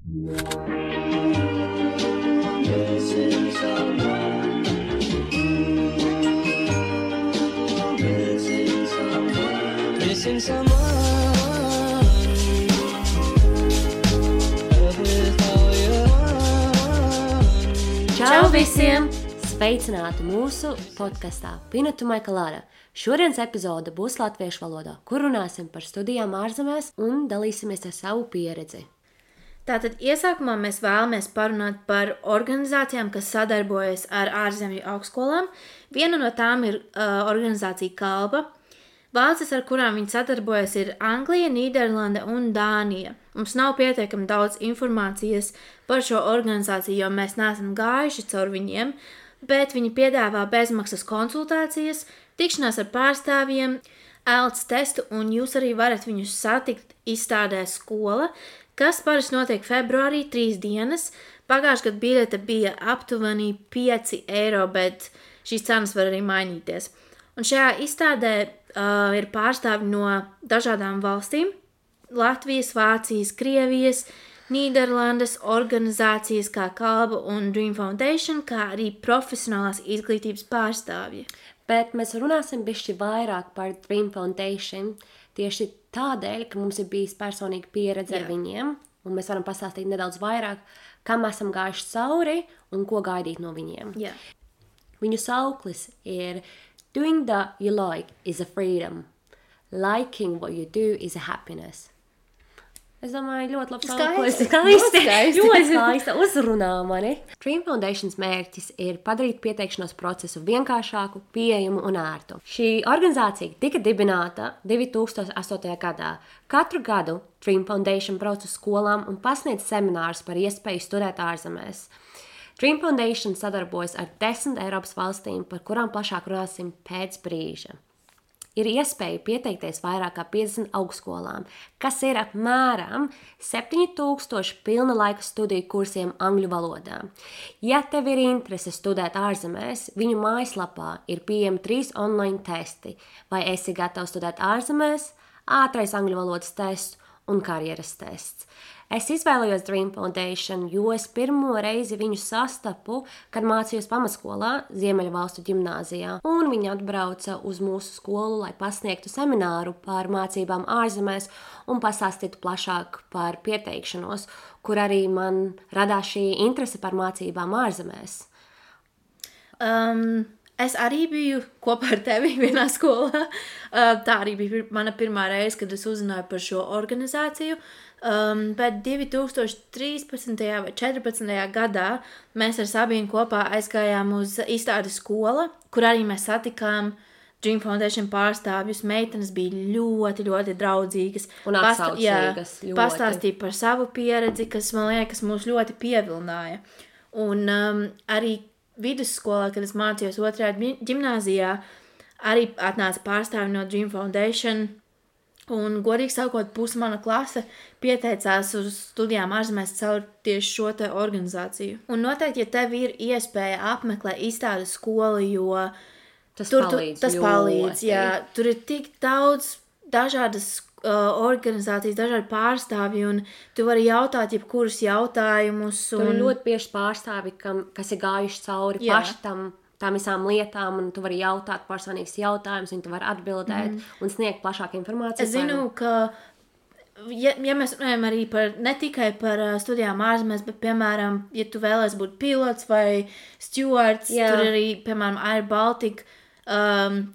Missing someone with all your Čau visiem! Sveicināti mūsu podkastā Pina to my Colada. Šodienas epizode būs latviešu valodā, kur runāsim par studijām ārzemēs un dalīsimies ar savu pieredzi. Tātad iesākumā mēs vēlamies parunāt par organizācijām, kas sadarbojas ar ārzemju augstskolām. Viena no tām ir organizācija Kalba. Valstis, ar kurām viņi sadarbojas, ir Anglija, Nīderlande un Dānija. Mums nav pietiekami daudz informācijas par šo organizāciju, jo mēs neesam gājuši caur viņiem, bet viņi piedāvā bezmaksas konsultācijas, tikšanās ar pārstāvjiem, IELTS testu, un jūs arī varat viņus satikt izstādē Skola, kas parasti notiek februārī 3 dienas. Pagājušajā gadā biļete bija aptuveni 5 eiro, bet šīs cenas var arī mainīties. Un šajā izstādē ir pārstāvji no dažādām valstīm – Latvijas, Vācijas, Krievijas, Nīderlandes, organizācijas kā Kalba un Dream Foundation, kā arī profesionālās izglītības pārstāvji. Bet mēs runāsim bišķi vairāk par Dream Foundation tieši tādēļ, ka mums ir bijis personīga pieredze ar viņiem, un mēs varam pastāstīt nedaudz vairāk, kam esam gājuši cauri un ko gaidīt no viņiem. Jā. Viņu sauklis ir Doing that you like is a freedom. Liking what you do is a happiness. Es domāju, ļoti labi sauklis. Skaisti. Ļoti skaisti. Uzrunā mani. Dream Foundation's mērķis ir padarīt pieteikšanos procesu vienkāršāku, pieejamu un ērtu. Šī organizācija tika dibināta 2008. gadā. Katru gadu Dream Foundation brauc uz skolām un pasniedz seminārus par iespēju studēt ārzemēs. Dream Foundation sadarbojas ar 10 Eiropas valstīm, par kurām plašāk runāsim pēc brīža. Ir iespēja pieteikties vairāk kā 50 augstskolām, kas ir apmēram 7000 pilna laika studiju kursiem angļu valodā. Ja tev ir interese studēt ārzemēs, viņu mājaslapā ir pieejami 3 online testi, vai esi gatavs studēt ārzemēs, ātrais angļu valodas tests un karjeras tests. Es izvēlējos Dream Foundation, jo es pirmo reizi viņu sastapu, kad mācījos pamatskolā Ziemeļvalstu ģimnāzijā, un viņi atbrauca uz mūsu skolu, lai pasniegtu semināru par mācībām ārzemēs un pastāstītu plašāk par pieteikšanos, kur arī man radās šī interese par mācībām ārzemēs. Es arī biju kopā ar tevi vienā skolā. Tā arī bija mana pirmā reize, kad es uzzināju par šo organizāciju. Bet 2013. vai 2014. gadā mēs ar Sabīnu kopā aizgājām uz izstādi Skola, kur arī mēs satikām Dream Foundation pārstāvjus. Meitenes bija ļoti, ļoti draudzīgas. Un atsaucīgas. Pastāstīja par savu pieredzi, kas, man liekas, mūs ļoti pievilināja. Un arī vidusskolā, kad es mācījos 2. ģimnāzijā, arī atnāca pārstāvji no Dream Foundation. Un, godīgi sakot, puse mana klase pieteicās uz studijām ārzemēs caur tieši šo te organizāciju. Un noteikti, ja tev ir iespēja apmeklēt izstādes skolu, jo Tas palīdz, jā. Tur ir tik daudz dažādas organizācijas, dažādi pārstāvji, un tu vari jautāt jebkurus jautājumus. Tur ir ļoti bieži pārstāvji, kas ir gājuši cauri paši tām visām lietām, un tu vari jautāt personīgus jautājumus, un tu vari atbildēt un sniegt plašāku informāciju. Es zinu, ka, ja mēs runājam arī ne tikai par studijām ārzemēs, bet, piemēram, ja tu vēlies būt pilots vai stewards, tur arī, piemēram, Air Baltica,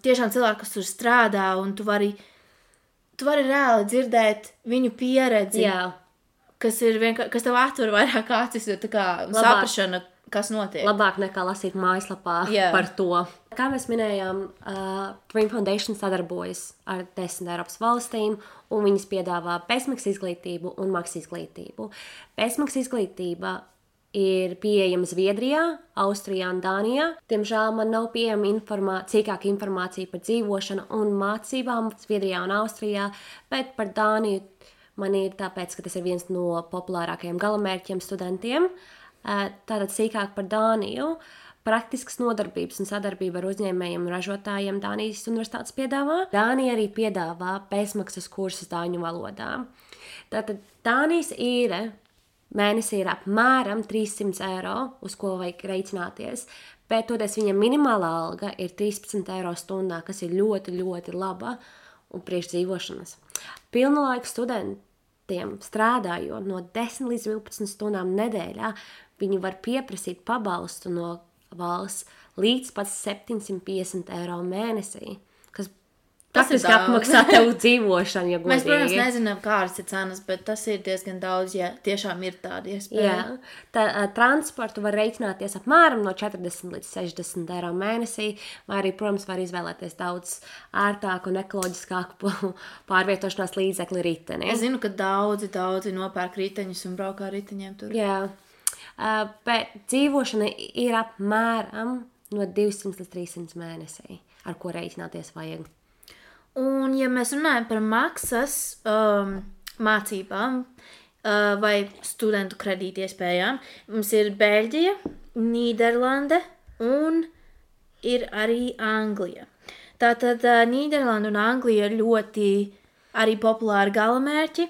tiešām cilvēki, kas tur strādā, un tu vari reāli dzirdēt viņu pieredzi, kas tev atver vairāk acis, jo tā kā saprašana, kas notiek. Labāk nekā lasīt mājaslapā par to. Kā mēs minējām, Dream Foundation sadarbojas ar 10 Eiropas valstīm, un viņas piedāvā bezmaksas izglītību un maksas izglītību. Bezmaksas izglītība ir pieejama Zviedrijā, Austrijā un Dānijā. Diemžēl man nav pieejama cīkāka informācija par dzīvošanu un mācībām Zviedrijā un Austrijā, bet par Dāniju man ir tāpēc, ka tas ir viens no populārākajiem galamērķiem studentiem. Tātad sīkāk par Dāniju. Praktiskas nodarbības un sadarbība ar uzņēmējiem un ražotājiem Dānijas universitātes piedāvā. Dānija arī piedāvā bezmaksas kursus dāņu valodā. Tātad Dānijas īre mēnesī ir apmēram 300 eiro, uz ko vajag reiķināties. Bet toties viņa minimālā alga ir 13 eiro stundā, kas ir ļoti, ļoti laba un priekšdzīvošanas. Pilnlaika studentiem strādājot no 10 līdz 12 stundām nedēļā, viņi var pieprasīt pabalstu no valsts līdz pat 750 eiro mēnesī, kas praktiski apmaksā tev dzīvošanu, ja godīgi. Mēs, protams, nezinām, kādas ir cenas, bet tas ir diezgan daudz, ja tiešām ir tāda iespēja. Jā, transportu var reiķināties apmēram no 40 līdz 60 eiro mēnesī, vai arī, protams, var izvēlēties daudz ārtāku un ekoloģiskāku pārvietošanās līdzekli riteni. Es zinu, ka daudzi nopērk riteņus un braukā riteņiem tur. Jā, bet dzīvošana ir apmēram no 200 līdz 300 mēnesī, ar ko reiķināties vajag. Un, ja mēs runājam par maksas mācībām vai studentu kredīti iespējām, mums ir Beļģija, Nīderlande un ir arī Anglija. Tātad Nīderlanda un Anglija ir ļoti arī populāri galamērķi.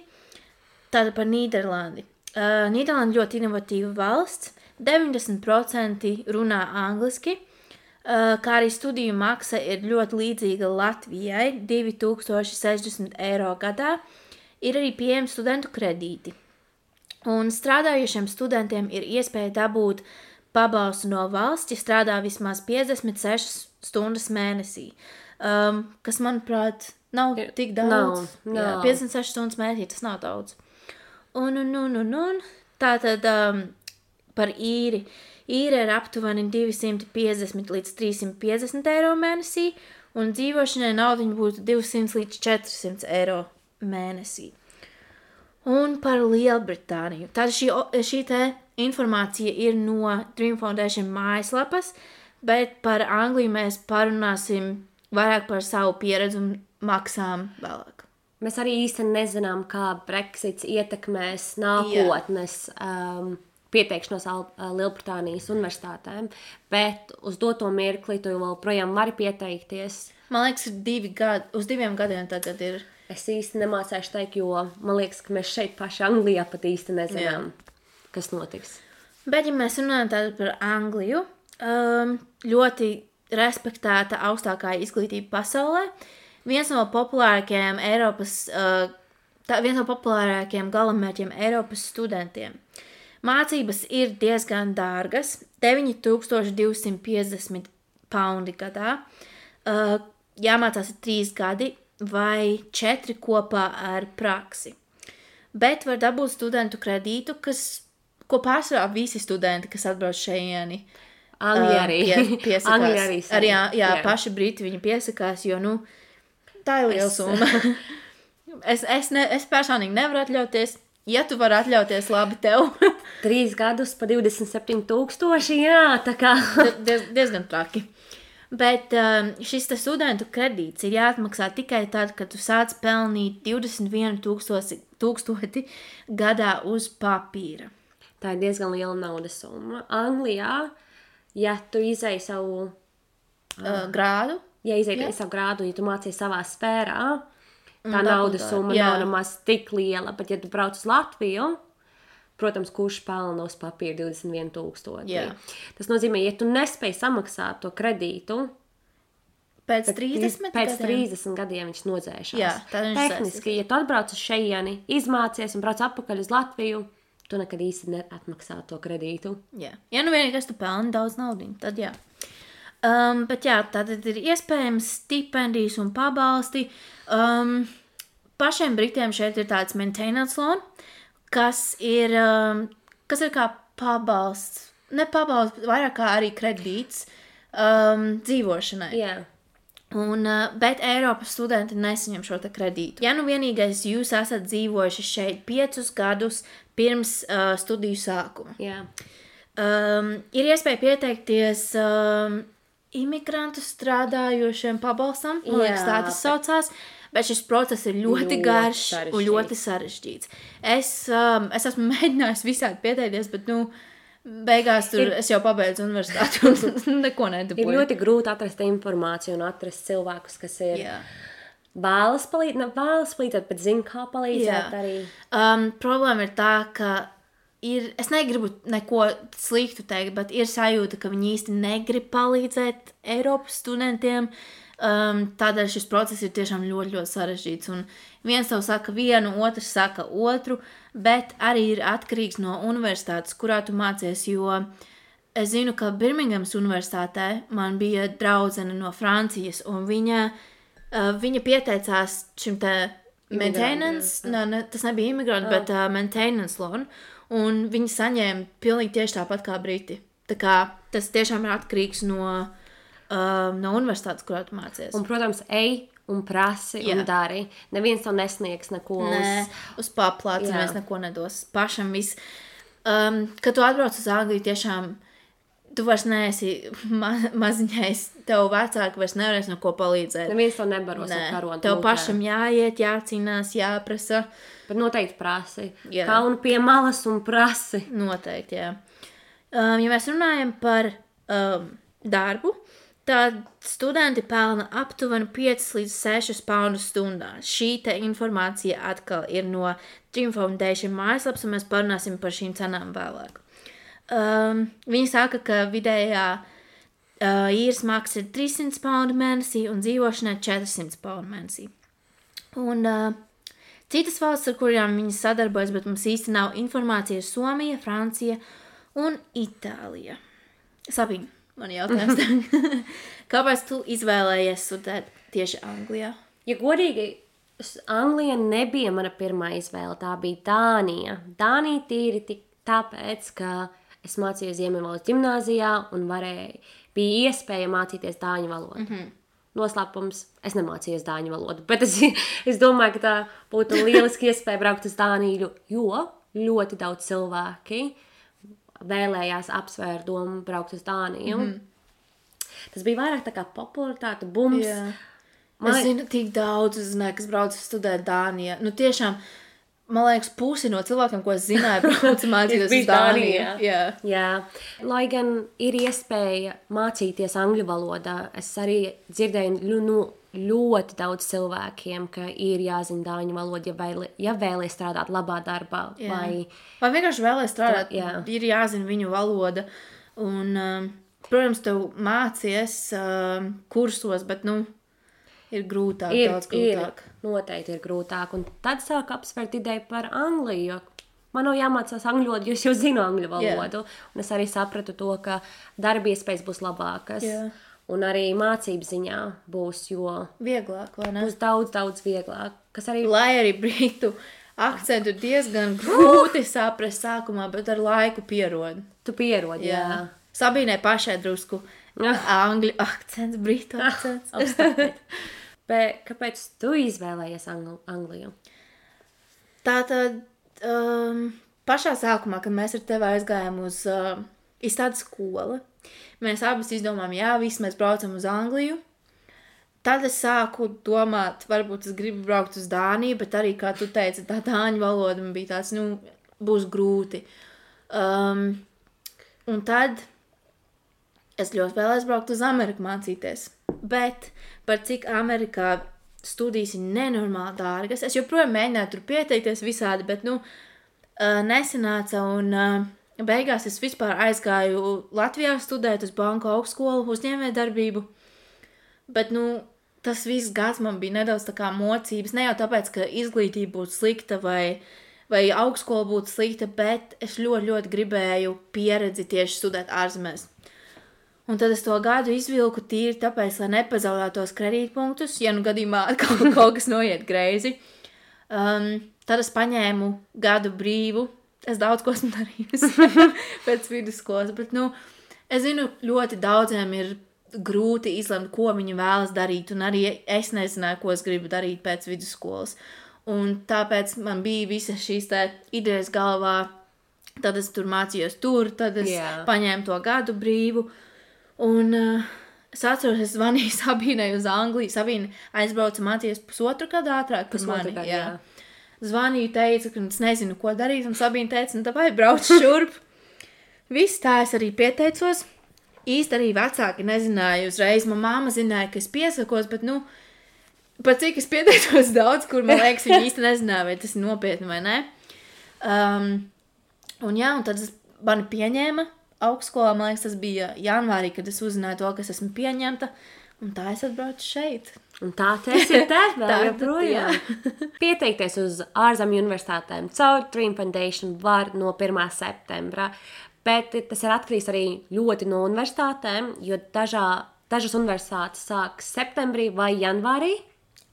Tātad par Nīderlandi. Nīderlanda ļoti inovatīva valsts, 90% runā angliski, kā arī studiju maksa ir ļoti līdzīga Latvijai, 2060 eiro gadā, ir arī pieejami studentu kredīti. Un strādājušiem studentiem ir iespēja dabūt pabalstu no valsts, ja strādā vismaz 56 stundas mēnesī, kas, manuprāt, nav tik daudz. Nav. Jā, 56 stundas mēnesī, tas nav daudz. Un tātad par īri. Īre ir aptuveni 250 līdz 350 eiro mēnesī, un dzīvošanai naudiņa būtu 200 līdz 400 eiro mēnesī. Un par Lielbritāniju. Tātad šī te informācija ir no Dream Foundation mājaslapas, bet par Angliju mēs parunāsim vairāk par savu pieredzi un maksām vēlāk. Mēs arī īsti nezinām, kā Brexits ietekmēs nākotnes pieteikšanos Lielbritānijas universitātēm, bet uz doto mirkli tu vēl projām vari pieteikties. Man liekas, uz 2 gadiem tagad ir. Es īsti nemācēšu teikt, jo man liekas, ka mēs šeit paši Anglijā pat īsti nezinām, kas notiks. Bet, ja mēs runājam tātad par Angliju, ļoti respektēta augstākā izglītība pasaulē, viens no populārākajiem galamērķiem Eiropas studentiem. Mācības ir diezgan dārgas, 9250 paundi gadā, jāmācās 3 gadi vai 4 kopā ar praksi. Bet var dabūt studentu kredītu, ko pārsvarā visi studenti, kas atbrauc šeieni, piesakās. Jā, paši briti viņi piesakās, jo, tā ir liela summa. Es personīgi nevaru atļauties. Ja tu vari atļauties, labi tev. 3 gadus pa 27,000, jā, tā kā. Diezgan traki. Bet šis studentu kredīts ir jāatmaksā tikai tad, kad tu sāc pelnīt 21,000 gadā uz papīra. Tā ir diezgan liela naudas summa. Anglijā, ja tu izēji savu grādu, ja tu mācies savā sfērā, tā naudas summa nav nemaz tik liela, bet ja tu brauc uz Latviju, protams, kurš pelna uz papīra 21,000. Tas nozīmē, ja tu nespēji samaksāt to kredītu, pēc 30 gadiem viņš nodzēšās. Tehniski, ja tu atbrauc uz šeieni, izmācies un brauc atpakaļ uz Latviju, tu nekad īsti neatmaksā to kredītu. Ja vienīgais tu pelni daudz naudiņu, tad jā. Bet tātad ir iespējams stipendijas un pabalsti. Pašiem Britiem šeit ir tāds maintenance loan, kas ir kā pabalsts, ne pabalsts, vairāk kā arī kredīts dzīvošanai. Jā. Bet Eiropas studenti nesaņem šo te kredītu. Ja vienīgais jūs esat dzīvojuši šeit 5 gadus pirms studiju sākuma. Jā. Ir iespēja pieteikties imigrantu strādājošiem pabalstam, man liekas, tā tas saucās, bet šis process ir ļoti garš un ļoti sarežģīts. Es esmu mēģinājis visādi pieteikties, bet, beigās es jau pabeidzu universitāti un neko nedabūju. Ir ļoti grūti atrast informāciju un atrast cilvēkus, kas ir vēlas palīdzēt, bet zina, kā palīdzēt arī. Problēma ir tā, ka es negribu neko sliktu teikt, bet ir sajūta, ka viņi īsti negrib palīdzēt Eiropas studentiem. Tādēļ šis process ir tiešām ļoti, ļoti sarežģīts. Un viens tev saka vienu, otrs saka otru, bet arī ir atkarīgs no universitātes, kurā tu mācies, jo es zinu, ka Birmingemas universitātē man bija draudzene no Francijas, un viņa pieteicās šim te maintenance, tas nebija imigranti, bet maintenance loan, un viņi saņēma pilnīgi tieši tāpat kā Briti. Tā kā tas tiešām ir atkarīgs no universitātes, kurā tu mācies. Un, protams, ej un prasi un dari. Neviens tev nesniegs neko uz paplāca, neviens neko nedos. Pašam viss. Kad tu atbrauc uz Angliju, tiešām tu vairs neesi maziņais, tev vecāki vairs nevarēs neko palīdzēt. Neviens tev nebaros ar karonu. Tev pašam jāiet, jācīnās, jāprasa. Bet noteikti prasi. Kaunu pie malas un prasi. Noteikti, jā. Ja mēs runājam par darbu, tad studenti pelna aptuveni 5 līdz 6 poundus stundā. Šī te informācija atkal ir no Dream Foundation mājaslaps, un mēs parunāsim par šīm cenām vēlāk. Viņi saka, ka vidējā īres maksa ir 300 poundu mēnesī un dzīvošanai 400 poundu mēnesī. Un citas valsts, ar kurām viņi sadarbojas, bet mums īsti nav informācija, ir Somija, Francija un Itālija. Sabīna. Man jautājums. Kāpēc tu izvēlējies studēt tieši Anglijā? Ja godīgi, Anglija nebija mana pirmā izvēle, tā bija Dānija. Dānija tīri tāpēc, ka es mācījos Ziemeļvalsts ģimnāzijā un bija iespēja mācīties dāņu valodu. Noslēpums, es nemācījos dāņu valodu, bet es domāju, ka tā būtu lieliski iespēja braukt uz Dāniju, jo ļoti daudz cilvēki vēlējās apsvērt domu braukt uz Dāniju. Tas bija vairāk tā kā popularitāte, bums. Es zinu tik daudz, kas brauc studēt Dānijā. Nu tiešām, man liekas, pusi no cilvēkiem, ko es zināju, brauc mācīties uz Dāniju. Jā. Lai gan ir iespēja mācīties angļu valodā, es arī dzirdēju ļoti daudz cilvēkiem, ka ir jāzina dāņu valoda, ja vēlies strādāt labā darbā. Vai vienkārši vēlies strādāt, ir jāzina viņu valoda. Un, protams, tev mācies kursos, bet, ir grūtāk, daudz grūtāk. Noteikti ir grūtāk. Un tad sāk apsvērt ideju par Angliju, jo man nav jāmācās angļu valodu, jo es jau zinu angļu valodu. Un es arī sapratu to, ka darba iespējas būs labākas. Un arī mācību ziņā būs, jo vieglāk, vai ne? Būs daudz, daudz vieglāk. Lai arī britu akcentu diezgan grūti saprast sākumā, bet ar laiku pierod. Tu pierodi, jā. Sabīnai pašai drusku angļu akcents, britu akcents. Bet kāpēc tu izvēlējies Angliju? Tātad pašā sākumā, kad mēs ar tevi aizgājām uz izstādes skolu, mēs abas izdomājām, visi mēs braucam uz Angliju. Tad es sāku domāt, varbūt es gribu braukt uz Dāniju, bet arī, kā tu teici, tā dāņu valoda man bija tāds, būs grūti. Un tad es ļoti vēlēs braukt uz Ameriku mācīties. Bet par cik Amerikā studijas ir nenormāli dārgas, es joprojām mēģināju tur pieteikties visādi, bet, nesanāca un... Beigās es vispār aizgāju Latvijā studēt uz banku augstskolu uzņēmējdarbību, bet, tas viss gads man bija nedaudz tā kā mocības, ne jau tāpēc, ka izglītība būtu slikta vai augstskola būtu slikta, bet es ļoti, ļoti gribēju pieredzi tieši studēt ārzemēs. Un tad es to gadu izvilku tīri tāpēc, lai nepazaudētos kredītpunktus, ja gadījumā kaut kas noiet greizi. Tad es paņēmu gadu brīvu. Es daudz ko esmu darījusi pēc vidusskolas, bet, es zinu, ļoti daudziem ir grūti izlemt, ko viņi vēlas darīt, un arī es nezināju, ko es gribu darīt pēc vidusskolas. Un tāpēc man bija visas šīs idejas galvā, tad es tur mācījos tad es paņēmu to gadu brīvu, un es atceros, es zvanīju Sabīnai uz Angliju, Sabīna aizbrauca mācīties pusotru gadu ātrāk par mani. Zvanīju, teica, ka es nezinu, ko darīt, un Sabīna teica, vai brauc šurp. Viss tā es arī pieteicos. Īsti arī vecāki nezināja uzreiz. Man māma zināja, ka es piesakos, bet, pat cik es pieteicos daudz, kur, man liekas, viņi īsti nezināja, vai tas ir nopietni vai ne. Un jā, un tad mani pieņēma augstskolā, man liekas, tas bija janvārī, kad es uzzināju to, ka es esmu pieņemta, un tā es atbraucu šeit. Un tā tas ir vēl Tā, joprojām. Pieteikties uz ārzemju universitātēm caur Dream Foundation var no 1. septembra, bet tas ir atkarīgs arī ļoti no universitātēm, jo dažas universitātes sāks septembrī vai janvārī.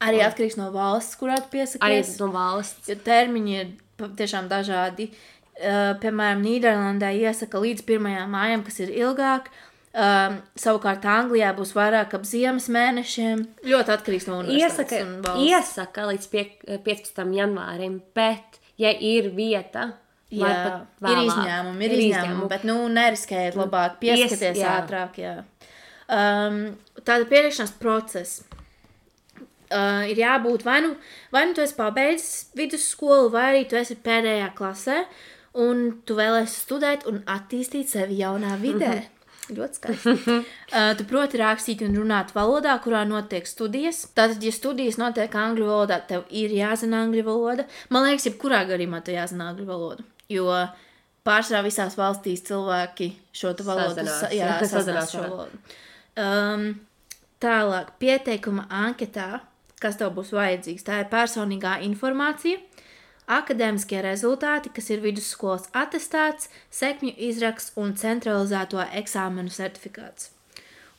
Arī atkarīgs no valsts, kurā tu Arī piesakies. no valsts. Jo termiņi ir tiešām dažādi. Piemēram, Nīderlandē iesaka līdz 1. mājam, kas ir ilgāk. Savukārt Anglijā būs vairāk ap ziemas mēnešiem. Ļoti atkarīgs no universitātes un valsts. Iesaka līdz 15. janvārim, bet, ja ir vieta, var Jā, pat ir vēlāk. izņēmumi, bet, neriskējiet labāk, pieskaties jā. ātrāk, jā. Tāda pieteikšanās procesa. Ir jābūt vai nu tu esi pabeidzis vidusskolu, vai arī tu esi pēdējā klasē, un tu vēlēsi studēt un attīstīt sevi jaunā vidē. Ļoti skaisti. Tu proti rakstīt un runāt valodā, kurā notiek studijas. Tātad, ja studijas notiek angļu valodā, tev ir jāzina angļu valoda. Man liekas, jebkurā gadījumā tev jāzina angļu valodu, jo pārsvarā visās valstīs cilvēki šo valodu sazinās šo valodu. Tālāk, pieteikuma anketā, kas tev būs vajadzīgs, tā ir personīgā informācija, akadēmiskie rezultāti, kas ir vidusskolas atestāts, sekmju izraksts un centralizēto eksāmenu certifikāts.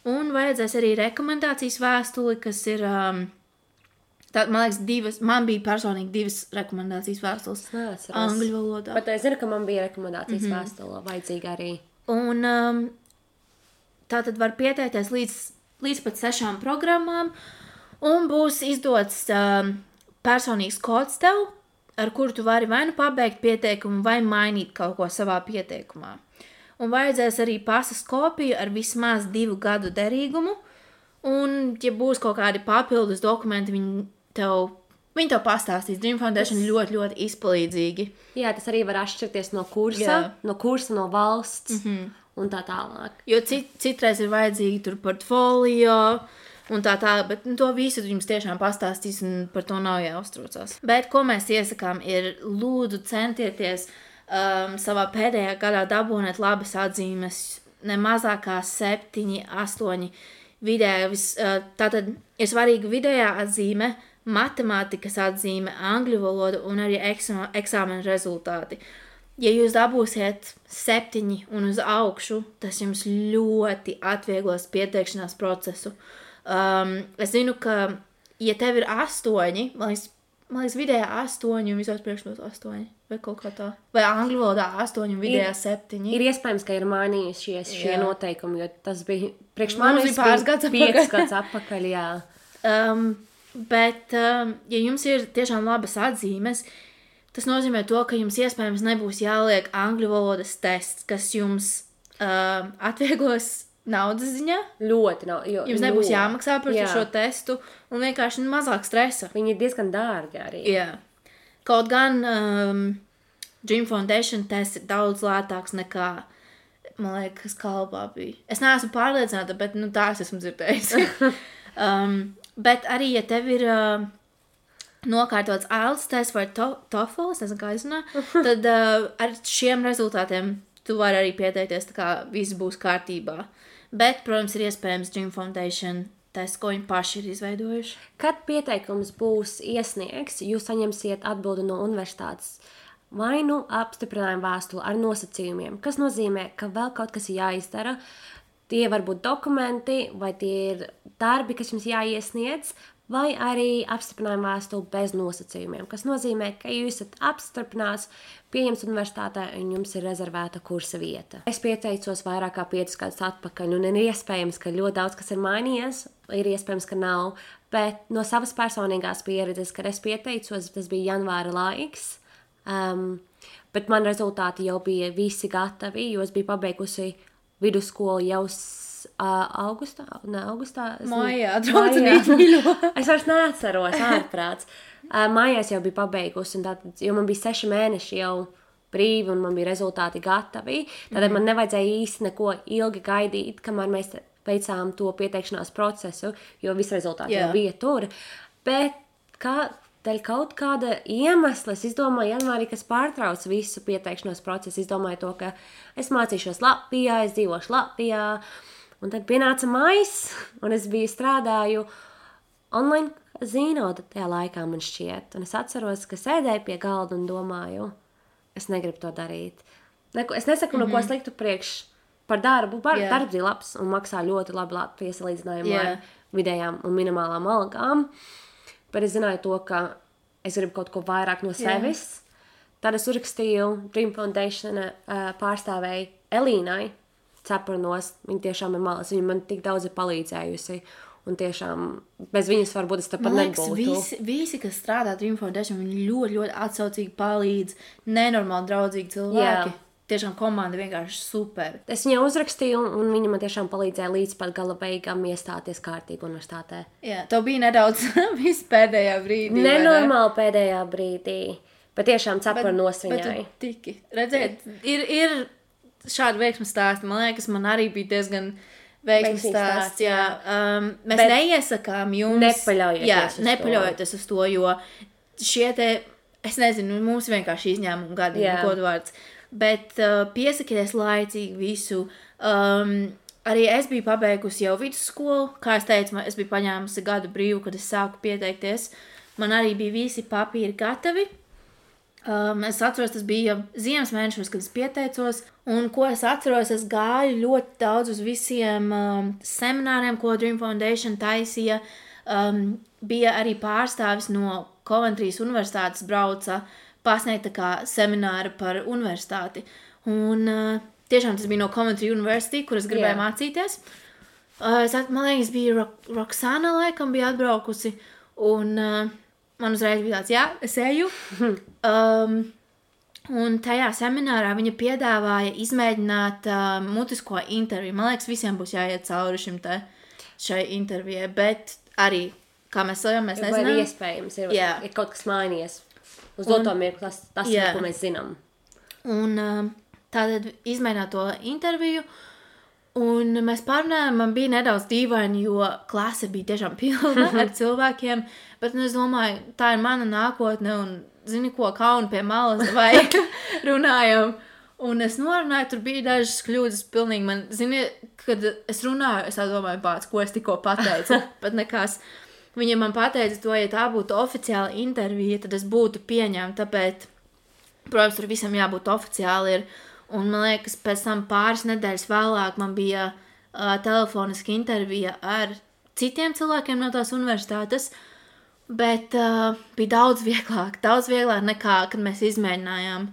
Un vajadzēs arī rekomendācijas vēstuli, kas ir, man liekas, man bija personīgi 2 rekomendācijas vēstules angļu valodā. Bet es zinu, ka man bija rekomendācijas vēstule vajadzīga arī. Un tā tad var pieteikties līdz pat 6 programmām, un būs izdots personīgs kods tev, ar kuru tu vari vai nu pabeigt pieteikumu, vai mainīt kaut ko savā pieteikumā. Un vajadzēs arī pasas kopiju ar vismaz 2 gadu derīgumu, un, ja būs kaut kādi papildus dokumenti, viņi tev pastāstīs. Dream Foundation ļoti, ļoti izpalīdzīgi. Jā, tas arī var atšķirties no kursa, no valsts un tā tālāk. Jo citreiz ir vajadzīgi tur portfolio, un tā, bet to visu jums tiešām pastāstīs, un par to nav jāuztraucās. Bet ko mēs iesakām ir, lūdzu centieties savā pēdējā gadā dabūnēt labas atzīmes, ne mazāk kā 7, 8 vidēja. Tātad ir svarīga vidējā atzīme, matemātikas atzīme, angļu valoda un arī eksāmena rezultāti. Ja jūs dabūsiet 7 un uz augšu, tas jums ļoti atvieglos pieteikšanās procesu. Es zinu, ka, ja tev ir 8, man liekas vidējā 8 un visos priekšmetos 8, vai kaut kā tā. Vai angļu valodā 8 un vidējā 7. Ir iespējams, ka ir mainījušies šie noteikumi, jo tas bija priekš Mums manis bija pāris gads 5 gads atpakaļ, jā. Bet, ja jums ir tiešām labas atzīmes, tas nozīmē to, ka jums iespējams nebūs jāliek angļu valodas tests, kas jums atvieglos naudas ziņā. Ļoti nav. Jums nebūs jāmaksā par šo testu un vienkārši mazāk stresa. Viņi ir diezgan dārgi arī. Jā. Kaut gan Dream Foundation tests ir daudz lētāks nekā, man liekas, Kalbā bija. Es neesmu pārliecināta, bet tā es esmu dzirdējusi. Bet arī, ja tev ir nokārtots IELTS tests vai TOEFL, es nezinu, kā izrunā, tad ar šiem rezultātiem tu vari arī pieteikties, tā kā viss būs kārtībā. Bet, protams, ir iespējams Dream Foundation tests, ko viņi paši ir izveidojuši. Kad pieteikums būs iesniegts, jūs saņemsiet atbildi no universitātes vai nu apstiprinājumu vēstuli ar nosacījumiem, kas nozīmē, ka vēl kaut kas ir jāizdara. Tie var būt dokumenti, vai tie ir darbi, kas jums jāiesniedz, vai arī apstiprinājuma vēstuli bez nosacījumiem, kas nozīmē, ka jūs esat apstiprināts, pieņemts universitātē un jums ir rezervēta kursa vieta. Es pieteicos vairāk kā 5 gadus atpakaļ, un ir iespējams, ka ļoti daudz kas ir mainījies, ir iespējams, ka nav, bet no savas personīgās pieredzes, kad es pieteicos, tas bija janvāra laiks, bet man rezultāti jau bija visi gatavi, jo es biju pabeigusi vidusskolu jau augustā. Mājā, draudzīgi mīļo. Es vairs neatceros, ārprāts. Mājās jau biju pabeigusi, un tātad, jo man bija 6 mēneši jau brīvi, un man bija rezultāti gatavi. Tātad man nevajadzēja īsti neko ilgi gaidīt, kamēr mēs veicām to pieteikšanās procesu, jo visi rezultāti jau bija tur. Bet dēļ kaut kāda iemesla es izdomāju janvārī, kas pārtrauc visu pieteikšanos procesu. Izdomāju to, ka es mācīšos Latvijā, es dzīvošu Latvijā. Un tad pienāca maijs, un es strādāju online zīnodu tajā laikā, man šķiet. Un es atceros, ka sēdēju pie galda un domāju, es negribu to darīt. Es nesaku neko sliktu priekš par darbu. Darbs ir labs un maksā ļoti labi Latvijas salīdzinājumā ar vidējām un minimālām algām. Bet es zināju to, ka es gribu kaut ko vairāk no sevis. Tad es uzrakstīju Dream Foundation pārstāvēju Elīnai Cepurnos. Viņa tiešām ir malas. Viņa man tik daudz ir palīdzējusi. Un tiešām bez viņas varbūt es tāpat nebūtu. Visi, kas strādā Dream Foundation, viņi ļoti, ļoti atsaucīgi palīdz. Nenormāli draudzīgi cilvēki. Tiešām komanda vienkārši super. Es viņai uzrakstīju, un viņa man tiešām palīdzēja līdz pat gala beigām iestāties kārtīgi universitātē. Jā, tev bija nedaudz viss pēdējā brīdī. Nenormāli pēdējā brīdī, bet tiešām Cepurnos viņai. Bet tiki. Redziet, ir šādi veiksmes stāsti. Man liekas, man arī bija diezgan veiksmes stāsts. Jā. Mēs neiesakām jums. Nepaļaujoties uz to, jo šie te, es nezinu, mums vienkārši izņēmumu gadi, kodvārds. Bet piesakieties laicīgi visu. Arī es biju pabeigusi jau vidusskolu. Kā es teicu, es biju paņēmusi gadu brīvu, kad es sāku pieteikties. Man arī bija visi papīri gatavi. Es atceros, tas bija ziemas mēnešos, kad es pieteicos. Un ko es atceros, es gāju ļoti daudz uz visiem semināriem, ko Dream Foundation taisīja. Bija arī pārstāvis no Coventry's universitātes brauca pasniegt tā kā semināru par universitāti. Un tiešām tas bija no Coventry University, kur es gribēju mācīties. Man liekas, bija Roxana laikam bija atbraukusi, un man uzreiz bija tāds, es eju. Un tajā seminārā viņa piedāvāja izmēģināt mutisko interviju. Man liekas, visiem būs jāiet cauri šai intervijai, bet arī, kā mēs nezinām. Vai iespējams, ir kaut kas mainījies. Uz doto mirkli tas ir, ko mēs zinām. Un tātad izmēģināt to interviju, un mēs pārunājām, man bija nedaudz dīvaini, jo klase bija tiešām pilna ar cilvēkiem, bet es domāju, tā ir mana nākotne, un zini ko, kaunu pie malas vai runājam. Un es norunāju, tur bija dažas kļūdas pilnīgi man, zini, kad es runāju, es domāju, ko es tikko pateicu, bet nekās. Viņa man pateica to, ja tā būtu oficiāla intervija, tad es būtu pieņemta, tāpēc, protams, tur visam jābūt oficiāli ir. Un man liekas, pēc tam pāris nedēļas vēlāk man bija telefoniska intervija ar citiem cilvēkiem no tās universitātes, bet bija daudz vieglāk nekā, kad mēs izmēģinājām.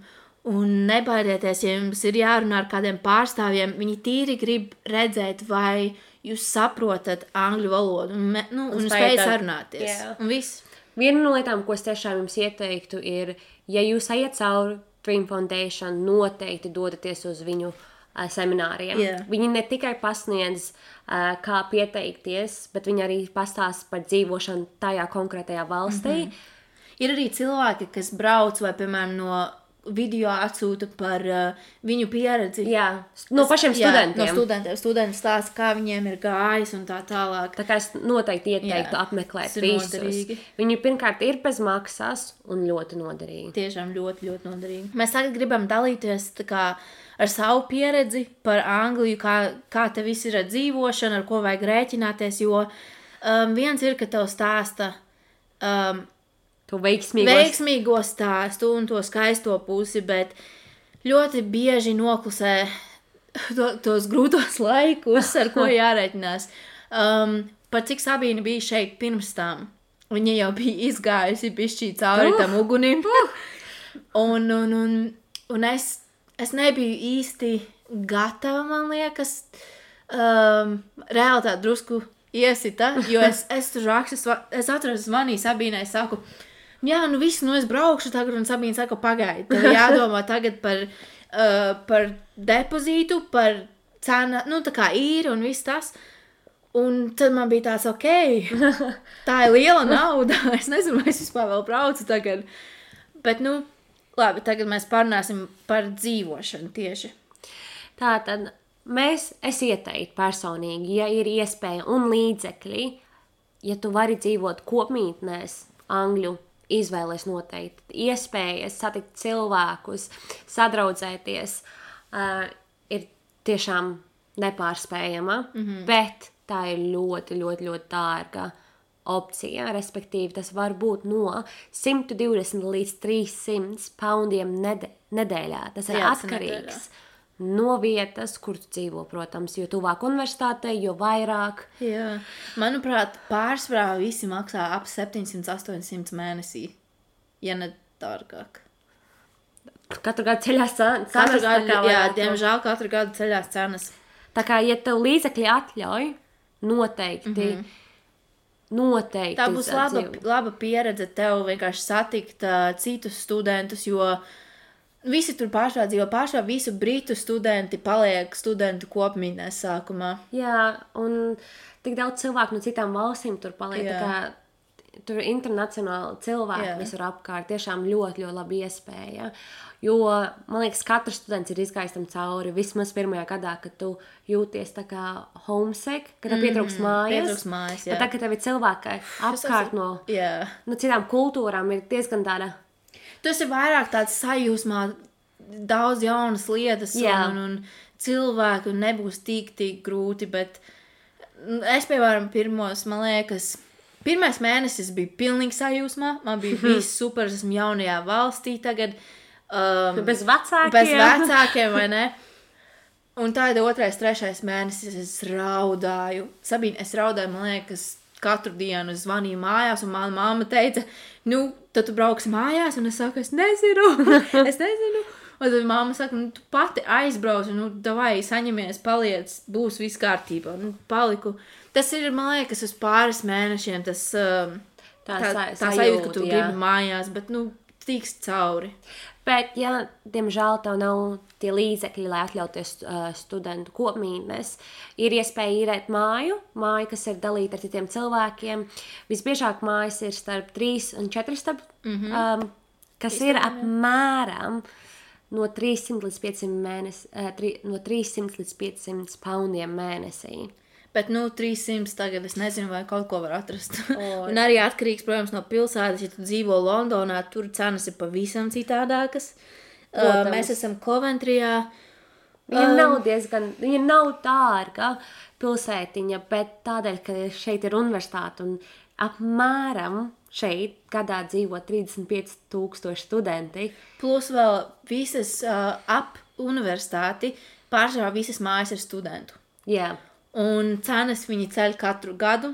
Un nebaidieties, ja jums ir jārunā ar kādiem pārstāvjiem, viņi tīri grib redzēt, vai jūs saprotat angļu valodu un spējat sarunāties. Un viss. Viena no lietām, ko es tiešām jums ieteiktu, ir, ja jūs ejat cauri Dream Foundation, noteikti dodaties uz viņu semināriem. Viņi ne tikai pasniedz, kā pieteikties, bet viņi arī pastāsta par dzīvošanu tajā konkrētajā valstī. Ir arī cilvēki, kas brauc vai, piemēram, no video atsūta par viņu pieredzi. No pašiem studentiem. No studentiem. Studenti stāsta, kā viņiem ir gājis un tā tālāk. Tā kā es noteikti ieteiktu apmeklēt visus. Noderīgi. Viņi pirmkārt ir bez maksas un ļoti noderīgi. Tiešām ļoti, ļoti noderīgi. Mēs tagad gribam dalīties tā kā ar savu pieredzi par Angliju, kā te viss ir ar dzīvošanu, ar ko vajag rēķināties, jo viens ir, ka tev stāsta to veiksmīgo stāstu un to skaisto pusi, bet ļoti bieži noklusē tos grūtos laikus, ar ko jārēķinās. Par cik Sabīna bija šeit pirms tam, viņa jau bija izgājusi bišķī cauri tam ugunim. Un es nebiju īsti gatava, man liekas, realitāte drusku iesita, jo es tur rakstu, es atceros, zvanīju Sabīnai, saku, viss, es braukšu tagad, un Sabīna saka, pagaidi, tev jādomā tagad par depozītu, par cenu, tā kā īri un viss tas. Un tad man bija tāds, tā ir liela nauda, es nezinu, vai es vispār vēl braucu tagad. Bet, labi, tagad mēs parunāsim par dzīvošanu tieši. Tātad, es ieteiktu personīgi, ja ir iespēja un līdzekļi, ja tu vari dzīvot kopmītnēs Angļu izvēles noteikti. Iespējas satikt cilvēkus, sadraudzēties ir tiešām nepārspējama, bet tā ir ļoti, ļoti, ļoti dārga opcija. Respektīvi, tas var būt no 120 līdz 300 poundiem nedēļā. Tas ir atkarīgs no vietas, kur tu dzīvo, protams, jo tuvāk universitātei, jo vairāk. Jā. Manuprāt, pārsvarā visi maksā ap 700-800 mēnesī, ja ne dārgāk. Katru gadu ceļās cenas. Diemžēl katru gadu ceļās cenas. Tā kā, ja tev līdzekļi atļauj, noteikti. Tā būs laba pieredze tev vienkārši satikt citus studentus, jo visi tur pārsvarā dzīvo, visu britu studenti paliek studentu kopmītnēs sākumā. Jā, un tik daudz cilvēku no citām valstīm tur paliek, tā kā tur ir internacionāli cilvēki visur apkārt, tiešām ļoti, ļoti labi iespēja. Jo, man liekas, katrs students ir izgājis tam cauri vismaz pirmajā gadā, kad tu jūties tā kā homesick, kad tev pietrūks mājas. Bet tā, kad tev ir cilvēki apkārt no citām kultūrām, ir diezgan tāda. Tas ir vairāk tāds sajūsmā, daudz jaunas lietas un cilvēku un nebūs tik grūti, bet es, piemēram, man liekas, pirmais mēnesis bija pilnīgi sajūsmā, man bija viss super, esmu jaunajā valstī tagad. Bez vecākiem, vai ne? Un tā ir 2., 3. mēnesis, es raudāju. Sabīne, es raudāju, man liekas, katru dienu es zvanīju mājās, un mana mamma teica, tad tu brauksi mājās, un es saku, es nezinu. Un tad mamma saka, tu pati aizbrauc, davai, saņemies, paliec, būs viss kārtībā. Paliku. Tas ir, man liekas, uz pāris mēnešiem, tas tā sajūta, ka tu gribi mājās, bet, tiks cauri. Bet, ja, diemžēl, tev nav tie līdzekļi, lai atļauties studentu kopmītnes, ir iespēja īrēt māju, kas ir dalīta ar citiem cilvēkiem. Visbiežāk mājas ir starp 3 un 4 stabu, kas ir apmēram no 300 līdz 500 poundiem mēnesī. Bet, 300 tagad es nezinu, vai kaut ko var atrast. Un arī atkarīgs, protams, no pilsētas. Ja tu dzīvo Londonā, tur cenas ir pavisam citādākas. Mēs esam Coventryjā. Viņa nav dārga pilsētiņa, bet tādēļ, ka šeit ir universitāte un apmēram šeit gadā dzīvo 35,000 studenti. Plus vēl visas ap universitāti pārsvarā visas mājas ir studentu. Jā. Un cenas viņi ceļ katru gadu,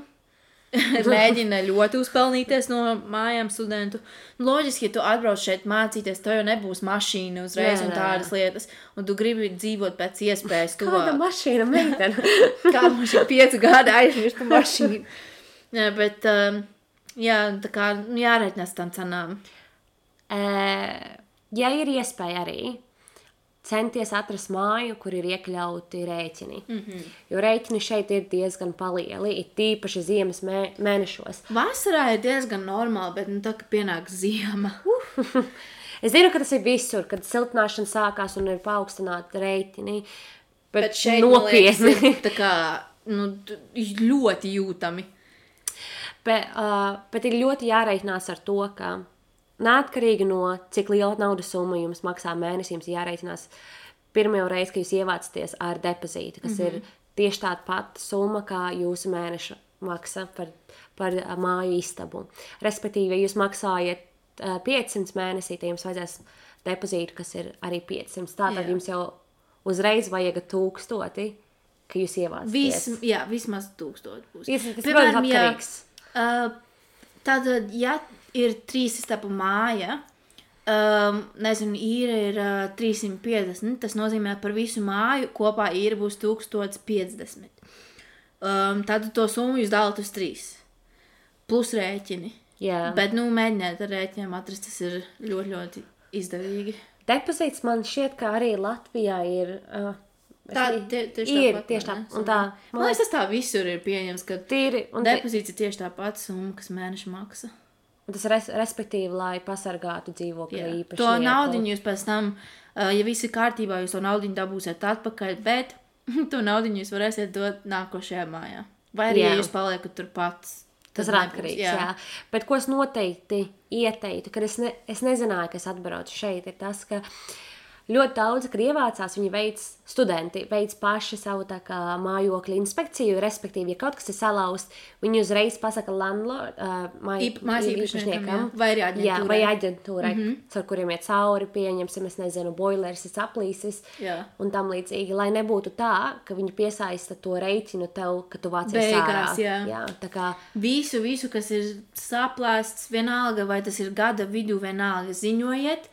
mēģina ļoti uzpelnīties no mājām studentu. Loģiski, ja tu atbrauc šeit mācīties, tev jau nebūs mašīna uzreiz un tādas lietas, un tu gribi dzīvot pēc iespējas tuvāk. Kāda mašīna, meitene? Kāda mašīna 5 gadi aizmirsta mašīnu. Bet, tā kā jāreiķinās tam cenām. Ja ir iespēja arī centies atrast māju, kur ir iekļauti rēķini. Jo rēķini šeit ir diezgan palieli, ir tīpaši ziemas mēnešos. Vasarā ir diezgan normāli, bet tā, ka pienāk ziema. Es zinu, ka tas ir visur, kad siltināšana sākās un ir paaugstināti rēķini. Bet šeit, nopietni. Man liekas, tā kā, ļoti jūtami. Bet ir ļoti jāreikinās ar to, ka neatkarīgi no cik liela naudas summa jums maksā mēnesī, jums jāreicinās pirmo reizi, ka jūs ievācaties ar depozītu, kas ir tieši tāda pati summa, kā jūsu mēneša maksa par māju istabu. Respektīvi, ja jūs maksājat 500 mēnesī, tad jums vajadzēs depozītu, kas ir arī 500. Tātad jums jau uzreiz vajag 1000, ka jūs ievācaties. Vismaz 1000 būs. Tas ir atkarīgs. Tātad, ja ir 3 istabu māja, īra ir 350, tas nozīmē par visu māju kopā īra būs 1050. Tad to summu jūs dalat uz 3. Plus rēķini. Jā. Bet, mēģiniet ar rēķiniem atrast, tas ir ļoti, ļoti izdevīgi. Depozīts man šķiet, ka arī Latvijā ir... Tieši tāpat. Man liekas, tas tā visur ir pieņems, ka depozīts ir tieši tā pati summa, kas mēneša maksa. Un tas respektīvi, lai pasargātu dzīvokļa īpašnieku. To naudiņu jūs pēc tam, ja viss ir kārtībā, jūs to naudiņu dabūsiet atpakaļ, bet to naudiņu jūs varēsiet dot nākošajā mājā. Vai arī, ja jūs paliekat tur pats Tas ir atkarīgs, jā. Bet ko es noteikti ieteiktu, kad es nezināju, ka es atbraucu šeit, ir tas, ka ļoti daudz, kad ievācās, studenti veic paši savu tā kā mājokļa inspekciju, respektīvi, ja kaut kas ir salauzts, viņi uzreiz pasaka mājas īpašniekam, vai arī aģentūrai. Jā, vai aģentūrai, ar kuriem iet cauri, pieņemsim, es nezinu, boilers ir saplīsis un tam līdzīgi, lai nebūtu tā, ka viņi piesaista to reiķinu tev, ka tu vācies ārā. Jā, tā kā visu, kas ir saplēsts, vienalga, vai tas ir gada vidū, vienalga, ziņojiet,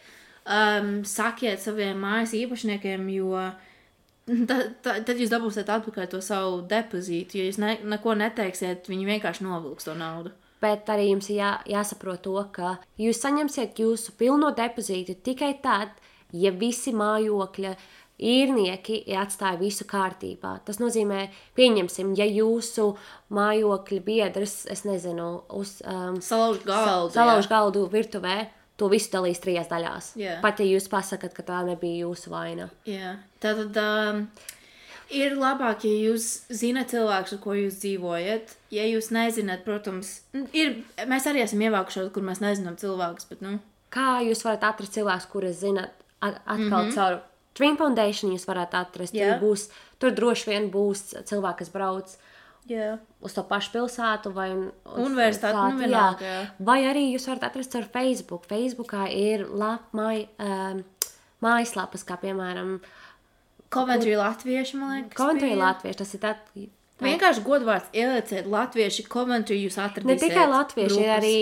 sakiet saviem mājas īpašniekiem, jo tad jūs dabūsiet atpakaļ to savu depozītu, ja jūs neko neteiksiet, viņi vienkārši novilks to naudu. Bet arī jums ir jāsaprot to, ka jūs saņemsiet jūsu pilno depozītu tikai tad, ja visi mājokļa īrnieki atstāja visu kārtībā. Tas nozīmē, pieņemsim, ja jūsu mājokļa biedrs, es nezinu, salauž galdu virtuvē, to visu dalīs 3 daļās. Pat ja jūs pasakat, ka tā nebija jūsu vaina. Tātad ir labāk, ja jūs zināt cilvēkus, ar ko jūs dzīvojat. Ja jūs nezināt, protams, mēs arī esam ievākušos, kur mēs nezinām cilvēkus, bet, Kā jūs varat atrast cilvēkus, kurus zināt atkal caur Dream Foundation jūs varat atrast. Tur droši vien būs cilvēki, kas brauc uz to pašu pilsētu vai universitāti, vai arī jūs varat atrast ar Facebook. Facebookā ir mājaslapas, kā piemēram Coventry latvieši, man liekas. Coventry latvieši, tas ir vienkārši godvārds ielieciet latvieši, Coventry jūs atradīsiet. Ne tikai latvieši,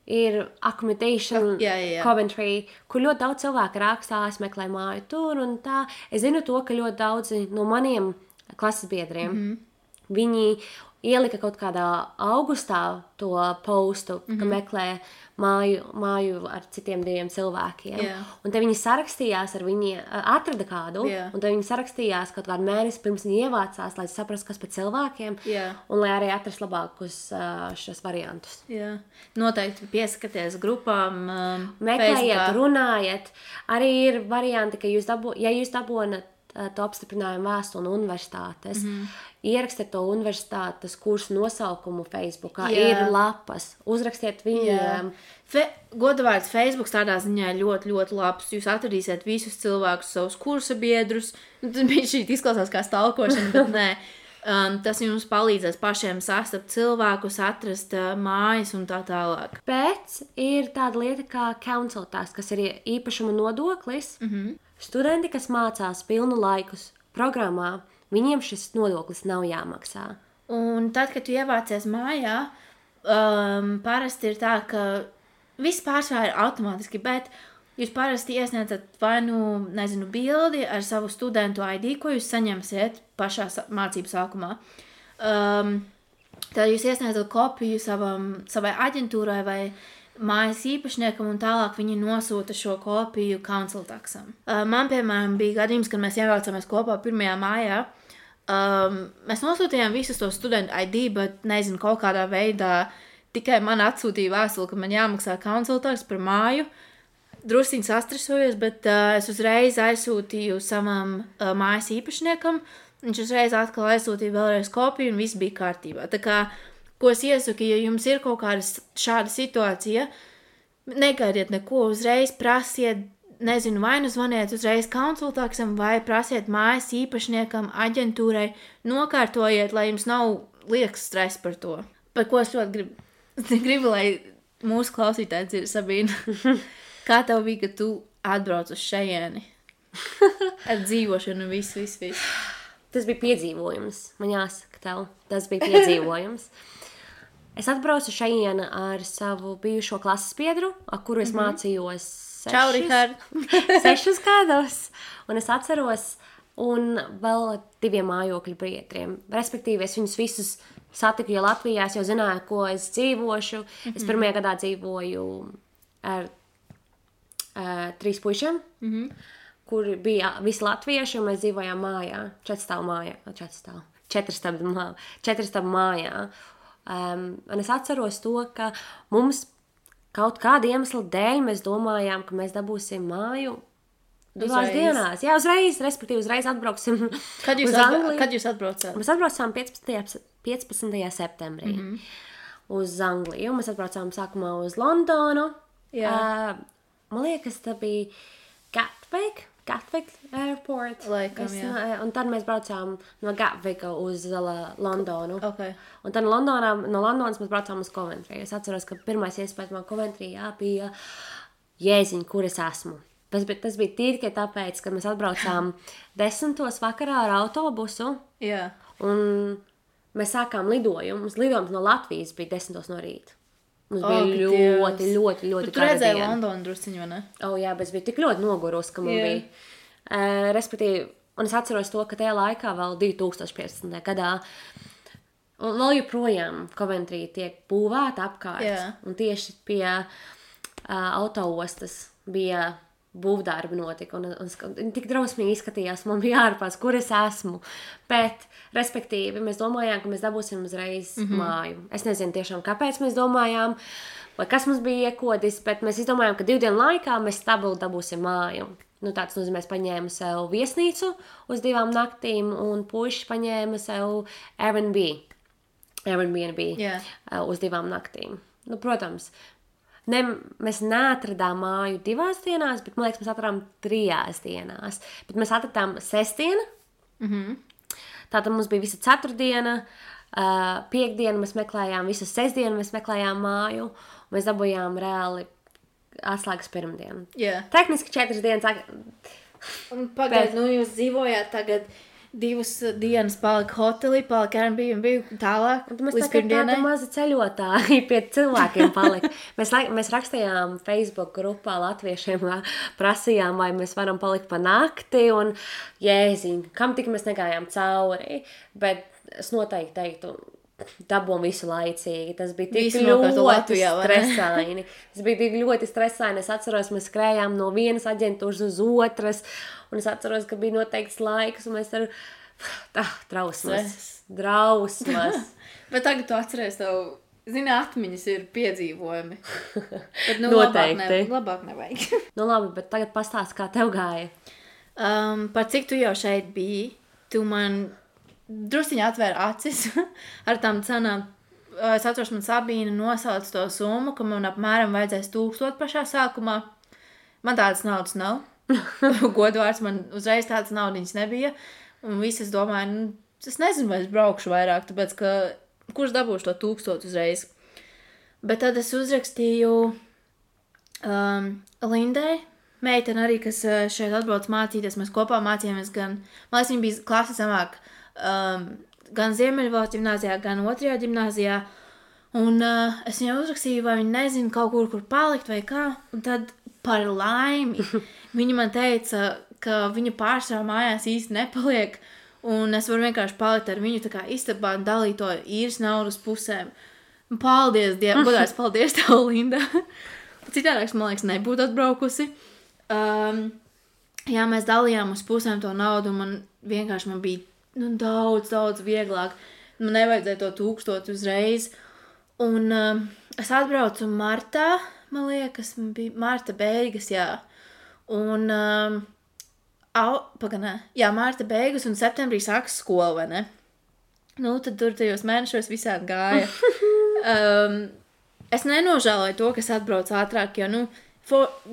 ir accommodation Coventry, kur ļoti daudz cilvēku rakstā, es meklēju māju tur un tā. Es zinu to, ka ļoti daudzi no maniem klases biedriem, viņi ielika kaut kādā augustā to postu, ka meklē māju ar citiem 2 cilvēkiem. Un te viņi sarakstījās ar atrada kādu, un te viņi sarakstījās kaut kādu mēnesi pirms viņi ievācās, lai saprastu, kas par cilvēkiem, un lai arī atrast labākus šos variantus. Noteikti pieskaties grupām, meklējiet, runājiet. Arī ir varianti, ka ja jūs dabonat to apstiprinājumu vēstuli no universitātes, ierakstiet to universitātes kursu nosaukumu Facebookā, ir lapas, uzrakstiet viņiem. Godavārds Facebook tādā ziņā ļoti, ļoti labs. Jūs atradīsiet visus cilvēkus, savus kursa biedrus. Šī izklausās kā stalkošana, bet nē. Tas jums palīdzēs pašiem sastapt cilvēkus, atrast mājas un tā tālāk. Bet ir tāda lieta kā council tax, kas ir īpašuma nodoklis. Studenti, kas mācās pilnu laikus programmā, viņiem šis nodoklis nav jāmaksā. Un tad, kad tu ievācies mājā, parasti ir tā, ka viss pārsvarā ir automātiski, bet jūs parasti iesniedzat vai bildi ar savu studentu ID, ko jūs saņemsiet pašā mācību sākumā. Tad jūs iesniedzat kopiju savai aģentūrai vai mājas īpašniekam, un tālāk viņi nosūta šo kopiju council taxam. Man, piemēram, bija gadījums, kad mēs ievācāmies kopā 1. mājā. Mēs nosūtījām visus to studentu ID, bet nezinu, kaut kādā veidā tikai man atsūtīja vēstuli, ka man jāmaksā council tax par māju. Drusciņi sastresojos, bet es uzreiz aizsūtīju savam mājas īpašniekam. Viņš uzreiz atkal aizsūtīja vēlreiz kopiju, un viss bija kārtībā. Tā kā ko es iesaku, ja jums ir kaut kāda šāda situācija, negaidiet neko, uzreiz prasiet, nezinu, vai zvaniet uzreiz council taxam, vai prasiet mājas īpašniekam, aģentūrai, nokārtojiet, lai jums nav liekas stress par to. Par ko es ļoti gribu, lai mūsu klausītāji dzird, Sabīna. Kā tev bija, ka tu atbrauc uz šejieni? Ar dzīvošanu un visu. Tas bija piedzīvojums, man jāsaka tev. Tas bija piedzīvojums. Es atbraucu šeit ar savu bijušo klases biedru, ar kuru es mācījos 6 gados. Un es atceros, un vēl 2 mājokļu biedriem. Respektīvi, es viņus visus satiku, jo Latvijā es jau zināju, ko es dzīvošu. Es 1. gadā dzīvoju ar 3 puišiem, kur bija visi latvieši, un mēs dzīvojām mājā, 4 stāvu mājā. Un es atceros to, ka mums kaut kāda iemesla dēļ mēs domājām, ka mēs dabūsim māju 2 dienās. Jā, uzreiz atbrauksim Kad jūs uz Angliju. Kad jūs atbraucāt? Mēs atbraucām 15. septembrī. uz Angliju. Mēs atbraucām sākumā uz Londonu. Jā. Man liekas, tā bija Gatwick Airport. Laikam, jā. Un tad mēs braucām no Gatvika uz Londonu. Okay. Un tad no Londonas mēs braucām uz Coventry. Es atceros, ka pirmais iespējas man Coventry bija jēziņ, kur es esmu. Tas bija tīri tāpēc, ka mēs atbraucām 10. vakarā ar autobusu. Jā. Un mēs sākām lidojumu. Lidojums no Latvijas bija 10. no rīta. Mums bija ļoti Tu redzēji Londonu drusciņu, vai ne? Jā, bet es biju tik ļoti nogurus, ka man bija. Respektīvi, un es atceros to, ka tajā laikā vēl 2015. gadā un vēl joprojām Coventry tiek būvēta apkārt. Jā. Un tieši pie autoostas bija būvdarbi notika. Un tik drausmīgi izskatījās, man bija ārpās, kur es esmu. Bet, respektīvi, mēs domājām, ka mēs dabūsim uzreiz māju. Es nezinu tiešām, kāpēc mēs domājām, vai kas mums bija iekodis, bet mēs izdomājām, ka 2 dienu laikā mēs stabili dabūsim māju. Tāds nozīmē, es paņēmu sev viesnīcu uz 2 naktīm, un puiši paņēma sev Airbnb uz 2 naktīm. Protams, mēs neatradām māju 2 dienās, bet, man liekas, mēs atradām 3 dienās. Bet mēs atradām sestdienu. Tātad mums bija visa ceturtdiena, piekdiena mēs meklējām, visu sestdienu mēs meklējām māju, un mēs dabūjām reāli atslēgas pirmdienu. Yeah. Tehniski 4 dienas. Un pagaid, jūs dzīvojāt tagad 2 dienas palika hotelī, palika Airbnb tālāk līdz pirmdienai. Tāda maza ceļotāji pie cilvēkiem palika. Mēs rakstījām Facebook grupā latviešiem, prasījām, vai mēs varam palikt pa nakti, un jēziņ, kam tik mēs negājām cauri, bet es noteikti teiktu, dabūm visu laicīgi. Tas bija tik ļoti stresaini. Tas bija tik ļoti stresaini. Es atceros, mēs skrējām no vienas aģentūras uz otras, un es atceros, ka bija noteikts laiks, un mēs ar drausmas. Bet tagad tu atceries, zini, atmiņas ir piedzīvojumi. Bet, noteikti. Labāk nevajag. Labi, bet tagad pastāst, kā tev gāja. Par cik tu jau šeit biji, tu man drusciņi atvēra acis ar tām cenām. Es atceros, man Sabīna nosauca to summu, ka man apmēram vajadzēs 1000 pašā sākumā. Man tādas naudas nav. Godvārds, man uzreiz tādas naudiņas nebija. Un visi es domāju, es nezinu, vai es braukšu vairāk, tāpēc, ka kurš dabūšu to 1000 uzreiz. Bet tad es uzrakstīju Lindai, meitene arī, kas šeit atbrauc mācīties. Mēs kopā mācījāmies gan, man liekas, viņa bija klasi zemāk, gan Ziemeļvalsts ģimnāzijā, gan 2. ģimnāzijā. Un es viņai uzrakstīju, vai viņa nezina kaut kur palikt vai kā. Un tad par laimi viņa man teica, ka viņa pārsvarā mājās īsti nepaliek. Un es varu vienkārši palikt ar viņu tā kā istabā un dalīt to īres naudu uz pusēm. Un paldies, godārs, paldies tev, Linda. Citādāks, man liekas, nebūtu atbraukusi. Jā, mēs dalījām uz pusēm to naudu, un man bija daudz vieglāk. Man nevajadzēja to 1000 uzreiz. Un es atbraucu martā, man liekas, man bija marta beigas, jā. Un, marta beigas un septembrī sākas skola, vai ne? Tad tur tajos mēnešos visādi gāja. Es nenožēloju to, kas atbrauc ātrāk, jo,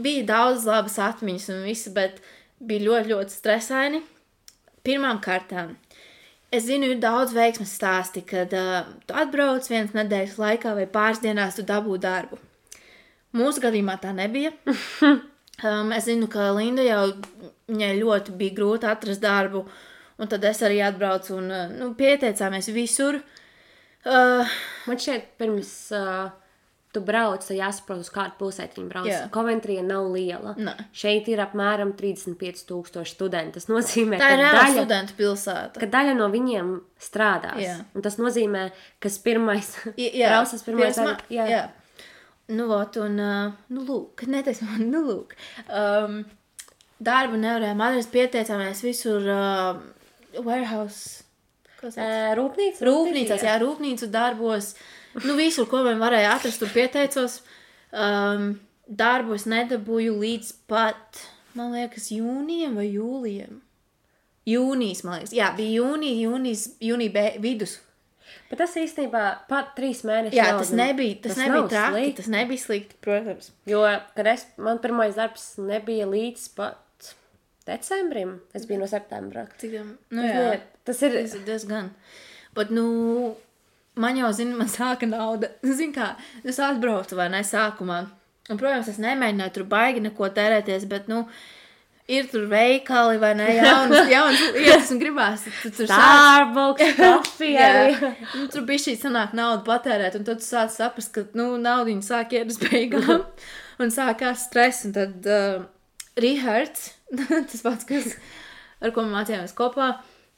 bija daudz labas atmiņas un visi, bet bija ļoti, ļoti stresaini. Pirmām kārtām. Es zinu, ir daudz veiksmes stāsti, kad tu atbrauc 1 nedēļas laikā vai pāris dienās tu dabū darbu. Mūsu gadījumā tā nebija. Es zinu, ka Linda jau viņai ļoti bija grūti atrast darbu, un tad es arī atbraucu un pieteicāmies visur. Man šeit pirms tu brauc, tad jāsaprot, uz kādu pilsētu viņi brauc. Coventry nav liela. Ne. Šeit ir apmēram 35,000 studenti. Tas nozīmē, tā ir reāla studentu pilsēta. Ka daļa no viņiem strādās. Jā. Un tas nozīmē, kas pirmais braucas pirmais. Jā. Lūk, neteiksim man, lūk. Darbu nevarējām atrast, pieteicāmies visur warehouse. Rūpnīcās, jā, rūpnīcu darbos. Visur, ko man varēja atrast, tur pieteicos. Darbu es nedabūju līdz pat, man liekas, jūnijam vai jūlijam. Jūnijas, man liekas. Jā, bija jūnija vidus. Bet tas īstenībā pat 3 mēnešus Jā, nav, tas nebija nav traki, slikti. tas nebija slikti, protams. Jo, kad man pirmais darbs nebija līdz pat decembrim, es biju no septembra. Cik tam? Tas ir... Tas ir diezgan. Bet, man jau, man sāka nauda. Kā, es atbraucu vai ne sākumā. Un, protams, es nemēģināju tur baigi neko tērēties, bet, ir tur veikali vai ne, jaunas lietas un gribās. Tur Starbucks, kafija. Tur bija šī sanāk naudu patērēt, un tad tu sāc saprast, ka, naudiņa sāk iet uz beigām. Un sākās stress, un tad Rihards, tas pats, ar ko mēs mācījāmies kopā,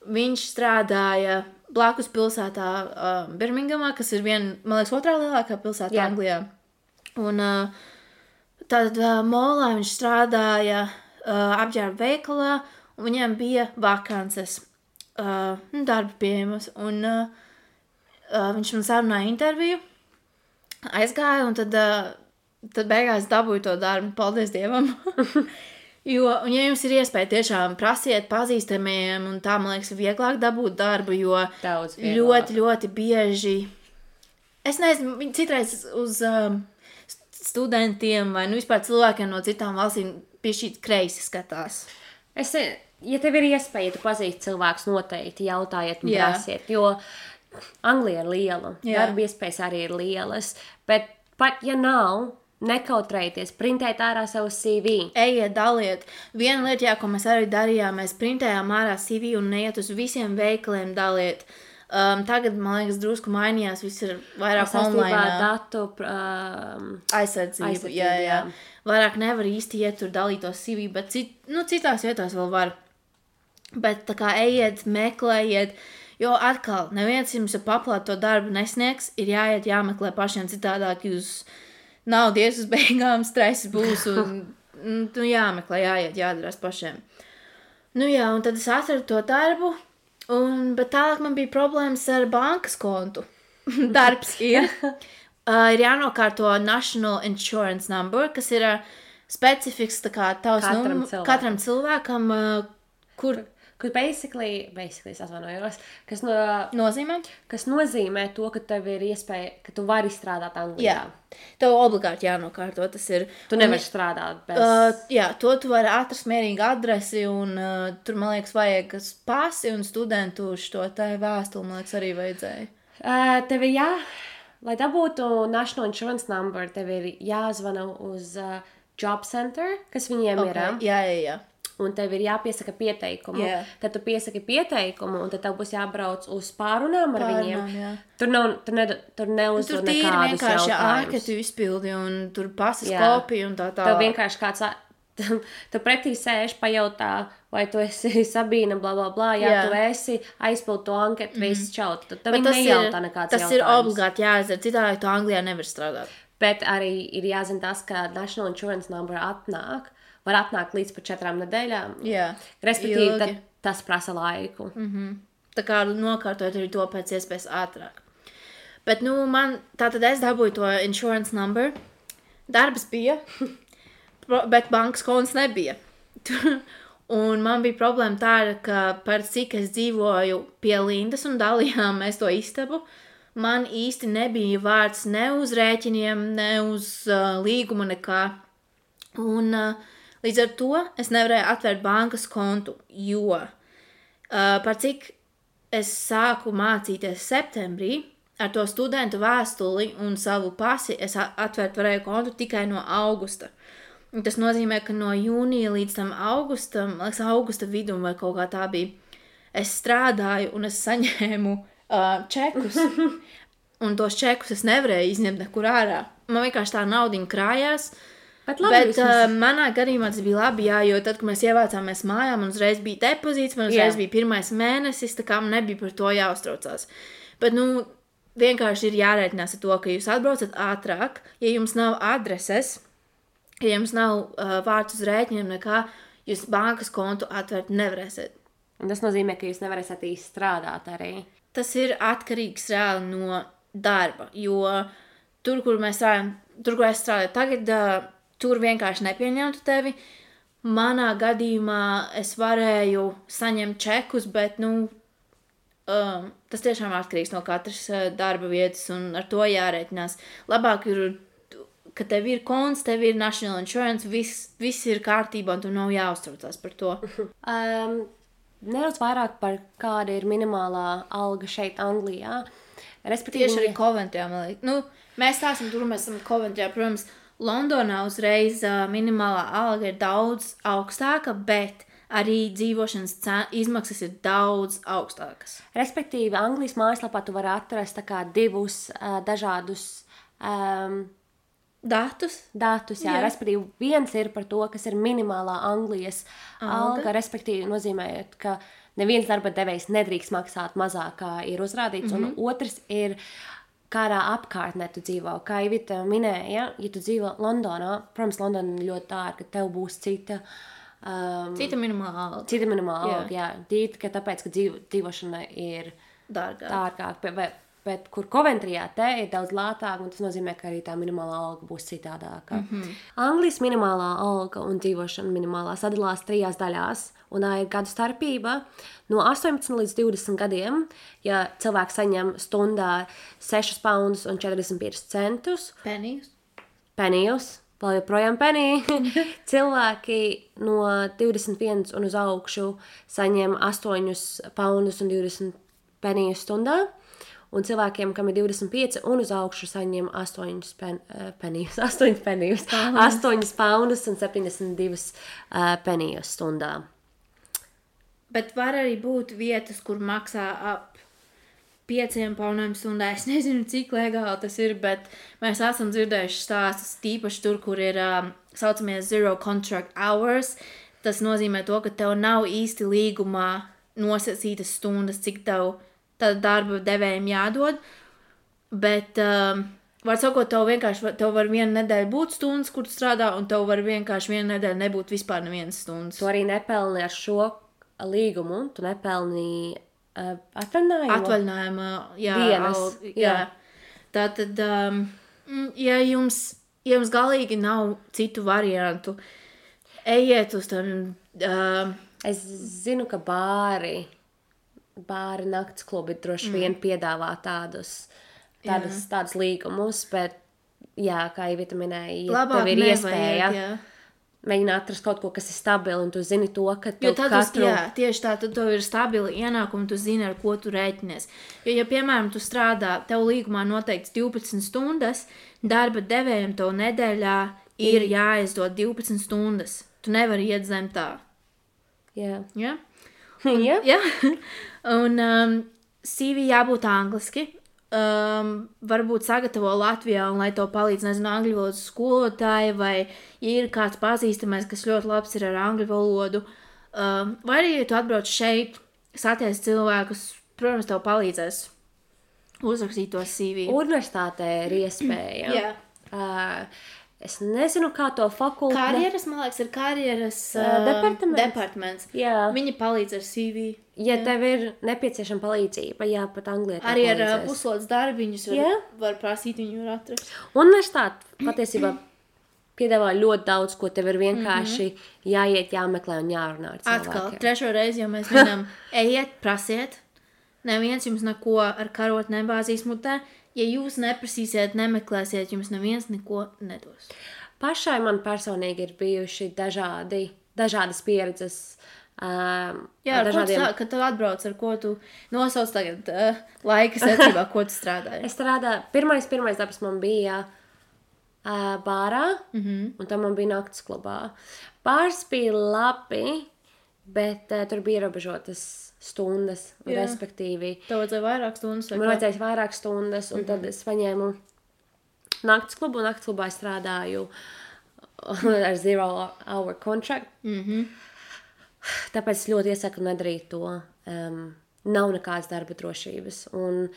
viņš strādāja blakus pilsētā Birmingamā, kas ir man liekas, otrā lielākā pilsēta Anglijā. Un tad molā viņš strādāja apģērba veikalā, un viņiem bija vakances, darba pieejamas, un viņš man sarunāja interviju, aizgāja, un tad beigās dabūju to darbu, paldies Dievam. Un ja jums ir iespēja tiešām prasiet pazīstamiem, un tā, man liekas, vieglāk dabūt darbu, jo ļoti, ļoti bieži, es nezinu, viņi citreiz uz studentiem vai vispār cilvēkiem no citām valstīm piešķīt kreisi skatās. Ja tev ir iespēja, tu pazīsti cilvēkus noteikti, jautājiet un prasiet, jo Anglija ir liela, darba iespējas arī ir lielas, bet pat ja nav, nekautrējieties, printēt ārā savu CV. Ejiet, daliet. Viena lieta, ko mēs arī darījām, mēs printējām ārā CV un neiet uz visiem veikaliem daliet. Tagad, man liekas, drusku mainījās, viss ir vairāk online. Datu aizsardzību. Jā. Vairāk nevar īsti iet tur dalīt to CV, bet citās vietās vēl var. Bet tā kā ejiet, meklējiet, jo atkal, neviens jums paplāt to darbu nesniegs, ir jāiet, jāmeklē pašiem citādāk, jūs naudu ies uz beigām, stress būs un jāmeklē, jāiet, jādarās pašiem. Un tad es atradu to darbu, bet tālāk man bija problēmas ar bankas kontu. Darbs ir jānokārto National Insurance Number, kas ir specifiks tā kā tavs katram cilvēkam, kur basically es atvainojos, kas nozīmē to, ka tev ir iespēja, ka tu vari strādāt Anglijā. Jā, tev obligāti jānokārto, tas ir. Tu nevari strādāt bez... To tu vari atrast mierīgi adresi, un tur, man liekas, vajag pasi un studentu šo te vēstuli, man liekas, arī vajadzēja. Tev ir lai dabūtu National Insurance Number, tev ir jāzvana uz Job Center, kas viņiem ir. Jā. Un tev ir jāpiesaka pieteikumu. Yeah. Tad tu piesaki pieteikumu, un tad tev būs jābrauc uz pārunām ar viņiem. Jā. Tur neuzvar nekādus jautājumus. Tur tīri vienkārši ārketu izpildi, un tur pasas kopija un tā. Tev vienkārši kāds... Tu pretī sēž, pajautā, vai tu esi Sabīna, bla, bla, bla. Jā, tu esi, aizpild to anketu, viss čaut. Tad viņi nejautā nekāds jautājums. Tas ir obligāti jāizdara, citādi tu Anglijā nevar strādāt. Bet arī ir jāzina tas, ka National Insurance Number var atnākt līdz pat 4 nedēļām. Jā, respektīvi, tas prasa laiku. Tā kā nokārtot arī to pēc iespējas ātrāk. Bet, tātad es dabūju to insurance number. Darbs bija, bet bankas konts nebija. Un man bija problēma tāda, ka par cik es dzīvoju pie Lindas un dalījām mēs to istabu, man īsti nebija vārds ne uz rēķiniem, ne uz līgumu nekā. Un... Līdz ar to es nevarēju atvērt bankas kontu, jo par cik es sāku mācīties septembrī, ar to studentu vēstuli un savu pasi es atvērt varēju kontu tikai no augusta. Un tas nozīmē, ka no jūnija līdz tam augustam, augusta vidum vai kaut kā tā bija, es strādāju un es saņēmu čekus. Un tos čekus es nevarēju izņemt nekur ārā. Man vienkārši tā naudiņa krājās. Bet manā gadījumā tas bija labi, jo tad, kad mēs ievācāmies mājā, man uzreiz bija depozīts, man uzreiz bija pirmais mēnesis, tā kā man nebija par to jāuztraucās. Bet, vienkārši ir jārēķinās ar to, ka jūs atbraucat ātrāk, ja jums nav adreses, ja jums nav vārds uz rēķiniem nekā, jūs bankas kontu atvērt nevarēsiet. Un tas nozīmē, ka jūs nevarēsiet īsti strādāt arī. Tas ir atkarīgs reāli no darba, jo tur, kur es strādāju tagad, tur vienkārši nepieņemtu tevi. Manā gadījumā es varēju saņemt čekus, bet, tas tiešām atkarīgs no katras darba vietas, un ar to jārēķinās. Labāk ir, ka tev ir konts, tev ir National Insurance, viss ir kārtībā, un tu nav jāuztraucās par to. Nedaudz vairāk par kāda ir minimālā alga šeit Anglijā. Respektīvi, Tieši arī Coventryā, man liekas. Nu, mēs stāsim tur, mēs esam Coventryā, protams, Londonā uzreiz minimālā alga ir daudz augstāka, bet arī dzīvošanas izmaksas ir daudz augstākas. Respektīvi, Anglijas mājaslapā tu vari atrast tā kā divus dažādus Datus? jā. Respektīvi, viens ir par to, kas ir minimālā Anglijas alga, respektīvi nozīmē, ka neviens darba devējs nedrīkst maksāt mazāk, kā ir uzrādīts, un otrs ir, kādā apkārtnē tu dzīvo. Kā Ivita minēja, ja tu dzīvo Londonā, protams, Londona ir ļoti dārga, tev būs cita minimāla alga. Cita minimāla alga, jā. Tīti, ka tāpēc, ka dzīvošana ir dārgāk. Bet kur Coventryā te ir daudz lētāk, un tas nozīmē, ka arī tā minimālā alga būs citādāka. Anglijas minimālā alga un dzīvošana minimālā sadalās 3 daļās, un tā ir gadu starpība. No 18 līdz 20 gadiem, ja cilvēks saņem stundā 6 poundus un 45 centus, penijus, vēl joprojām penī, cilvēki no 21 un uz augšu saņem 8 poundus un 20 penijus stundā, un cilvēkiem, kam ir 25 un uz augšu, saņem 8 poundus un 72 penijus stundā. Bet var arī būt vietas, kur maksā ap 5 poundiem stundā. Es nezinu, cik legāli tas ir, bet mēs esam dzirdējuši stāstus, tīpaši tur, kur ir saucamie zero contract hours. Tas nozīmē to, ka tev nav īsti līgumā nosacītas stundas, cik tev darba devējiem jādod. Bet, var sakot, tev var vienu nedēļu būt stundas, kur tu strādā, un tev var vienkārši vienu nedēļu nebūt vispār nevienas stundas. Tu arī nepelni ar šo līgumu, tu nepelni atvaļinājumu dienas. Jā. Tātad, ja jums galīgi nav citu variantu, ejiet uz tam. Es zinu, ka bāri nakts klubi droši vien piedāvā tādus līgumus, bet, jā, kā Ivita minēja, ja tev ir iespēja mēģināt atrast kaut ko, kas ir stabili, un tu zini to, ka tev tieši tā, tad tev ir stabili ienākumi, tu zini, ar ko tu rēķinies. Jo, ja, piemēram, tu strādā, tev līgumā noteikts 12 stundas, darba devējiem tev nedēļā ir jāizdod 12 stundas. Tu nevari iet zem tā. Jā. Ja? Jā. Un CV jābūt angliski. Varbūt sagatavo Latvijā, un lai to palīdz, nezinu, angļu valodas skolotāji, vai ja ir kāds pazīstamais, kas ļoti labs ir ar angļu valodu, vai arī, ja tu atbrauc šeit, satiec cilvēkus, protams, tev palīdzēs uzrakstīt to CV. Universitātē ir iespēja. Jā. Es nezinu, kā to fakultāti. Karjeras, man liekas, ir karjeras departaments. Jā. Viņi palīdz ar CV. Ja tev ir nepieciešama palīdzība, jā, pat Anglijā arī ar puslodes darbiņus var prasīt, viņi var atrast. Universitāte patiesībā piedāvā ļoti daudz, ko tev ir vienkārši jāiet, jāmeklē un jārunā ar cilvēkiem. Atkal, 3. reizi, jo mēs minam, ejiet, prasiet. Neviens jums neko ar karot nebāzīs mutē. Ja jūs neprasīsiet, nemeklēsiet, jums neviens neko nedos. Pašai man personīgi ir bijuši dažādas pieredzes. Kad tu atbrauc, ar ko tu nosauc tagad laika secībā, ko tu strādāji? Es strādāju, pirmais darbs man bija bārā, un tam man bija nakts klubā. Bārs bija labi, bet tur bija ierobežotas stundas, un respektīvi. Tev vajadzēja vairāk stundas? Man vajadzēja vairāk stundas, un tad es paņēmu nakts klubu, un nakts klubā strādāju ar 0 hour contract. Tāpēc es ļoti iesaku nedarīt to. Nav nekādas darba drošības. Un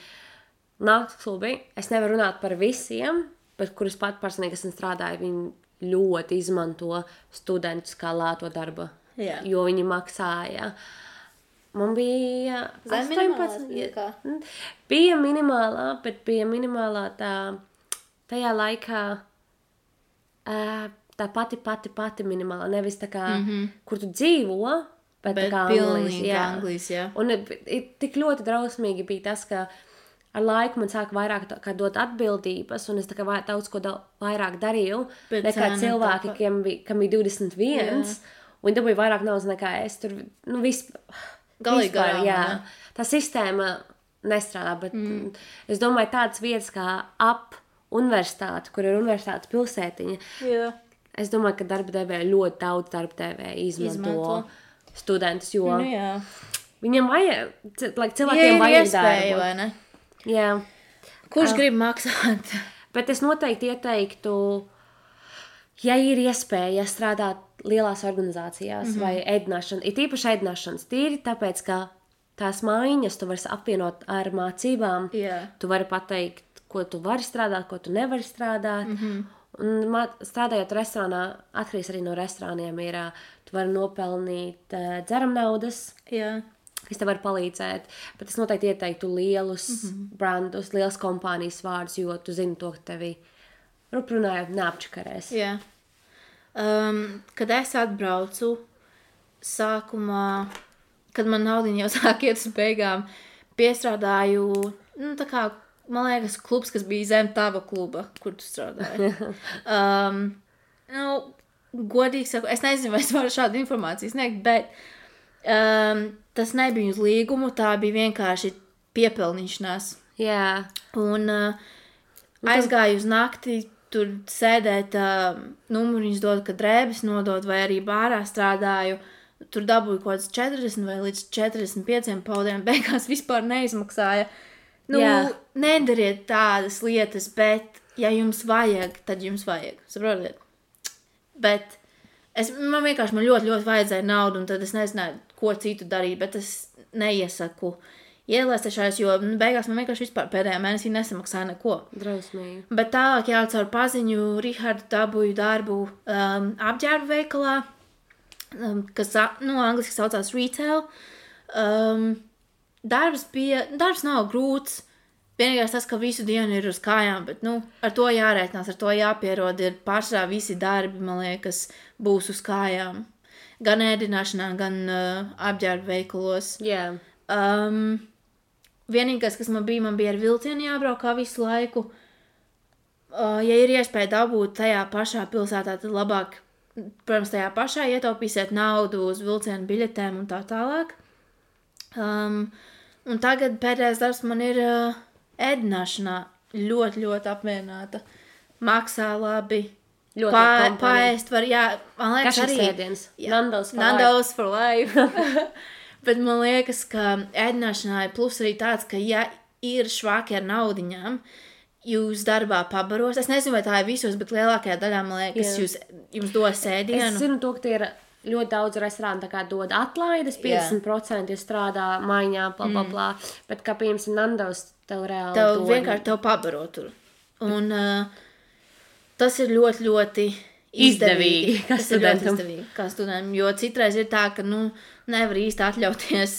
nakts klubi, es nevaru runāt par visiem, bet kurus pat personīgi esmu strādāju, viņi ļoti izmanto studentus kā lēto darba, jo viņi maksāja. Man bija 18. Bija minimālā, bet bija minimālā tajā laikā tā pati minimālā. Nevis tā kā, kur tu dzīvo, Bet Bet tā kā pilnīgi Anglijas, jā. Un tik ļoti drausmīgi bija tas, ka ar laiku man sāka vairāk kā dot atbildības, un es tā kā daudz ko vairāk darīju, Bet nekā cena cilvēki, kam bija 21, un dabūja vairāk naudas nekā es. Tur, Galīgi vispār, garām, jā. ne? Tā sistēma nestrādā, bet es domāju tādas vietas kā ap universitāti, kur ir universitātes pilsētiņa, Jā. es domāju, ka darba devēja ļoti daudz darba devēja izmanto studentus, jo Nu, jā. viņam vajag, cilvēkiem Ja ir vajag iespēja, darbu. vai ne? Jā, Kurš grib maksāt? bet es noteikti ieteiktu, ja ir iespēja strādāt lielās organizācijās vai ēdināšana, ir īpaši ēdināšanas tīri, tāpēc, ka tās mājiņas tu vari apvienot ar mācībām, Jā. tu vari pateikt, ko tu vari strādāt, ko tu nevari strādāt, un strādājot restorānā, atkarīgs arī no restorāniem, ir, tu vari nopelnīt dzeram naudas, Jā. kas tev var palīdzēt, bet es noteikti ieteiktu lielus brandus, lielas kompānijas vārdus, jo tu zini to, ka tevi runājot neapčakarēs. Jā. Kad es atbraucu sākumā, kad man naudiņa jau sāk iet uz beigām, piestrādāju, tā kā, man liekas, klubs, kas bija zem tava kluba, kur tu strādāji. Godīgi saku, es nezinu, vai es varu šādu informāciju sniegt, bet tas nebija uz līgumu, tā bija vienkārši piepelnīšanās. Jā, Un aizgāju uz nakti, tur sēdēt, numuriņus dod, kad drēbes nodod, vai arī bārā strādāju. Tur dabūju kaut kāds 40 vai līdz 45 paudiem, beigās vispār neizmaksāja. Jā. Nedariet tādas lietas, bet, ja jums vajag, tad jums vajag. Saprotiet? Bet man vienkārši ļoti, ļoti vajadzēja naudu, un tad es nezināju, ko citu darīt, bet es neiesaku ielēstešais, jo beigās man vienkārši vispār pēdējā mēnesī nesamaksāja neko. drausmīgi. Bet tālāk jau caur paziņu Rihardu dabūju darbu apģērbu veikalā, kas, angliski saucās retail. Darbs nav grūts. Vienīgais tas, ka visu dienu ir uz kājām, bet, ar to jārēķinās, ar to jāpierod, ir pārsvarā visi darbi, man liekas, būs uz kājām. Gan ēdināšanā, gan apģērbu veikalos. Jā, Vienīgais, kas man bija ar vilcienu jābrauc kā visu laiku. Ja ir iespēja dabūt tajā pašā pilsētā, tad labāk, protams, tajā pašā ietaupīsiet naudu uz vilcienu biļetēm un tā tālāk. Un tagad pēdējais darbs man ir ēdināšanā. Ļoti, ļoti apmierināta. Maksā labi. ļoti labi kompānija. Paēst var, jā, man liekas Kas šis arī. ēdiens? Jā. Nando's for life. Bet man liekas, ka ēdināšanā ir plus arī tāds, ka ja ir švāki ar naudiņām, jūs darbā pabaros. Es nezinu, vai tā ir visos, bet lielākajā daļā, man liekas, jums dos ēdienu. Es zinu to, ka tie ir ļoti daudz restorānu tā kā dod atlaides, 50% ja strādā maiņā, blā, bet kā piemēram Nando's tev reāli Tev dod. vienkārši tev pabaro tur. Un tas ir ļoti, ļoti izdevīgi. Kā Tas ir ļoti studentam. izdevīgi kā studentam, jo citreiz ir tā, ka, nevar īsti atļauties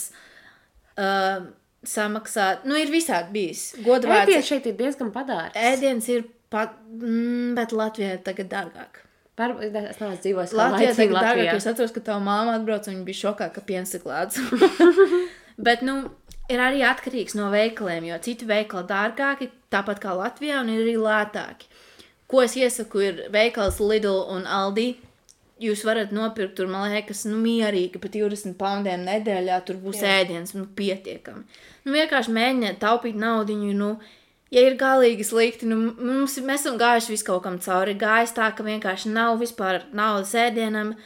samaksāt. Ir visādi bijis. Godvārds. Ēdiens šeit ir diezgan padārgs. Ēdiens ir bet Latvijā ir tagad dārgāk. Es neesmu dzīvojis Latvijā tagad dārgāk, Latvijā. jo es atceros, ka tava māma atbrauc un viņa bija šokā, ka piens ir klāts. Bet, ir arī atkarīgs no veikaliem, jo citi veikali dārgāki, tāpat kā Latvijā, un ir arī lētāki. Ko es iesaku, ir veikals Lidl un Aldi. Jūs varat nopirkt tur, man liekas, mierīgi par 20 poundiem nedēļā, tur būs ēdiens, pietiekami. Vienkārši mēģiniet taupīt naudiņu, ja ir galīgi slikti, mēs esam gājuši visu kaut kam cauri. Gājis tā, ka vienkārši nav vispār naudas ēdienam.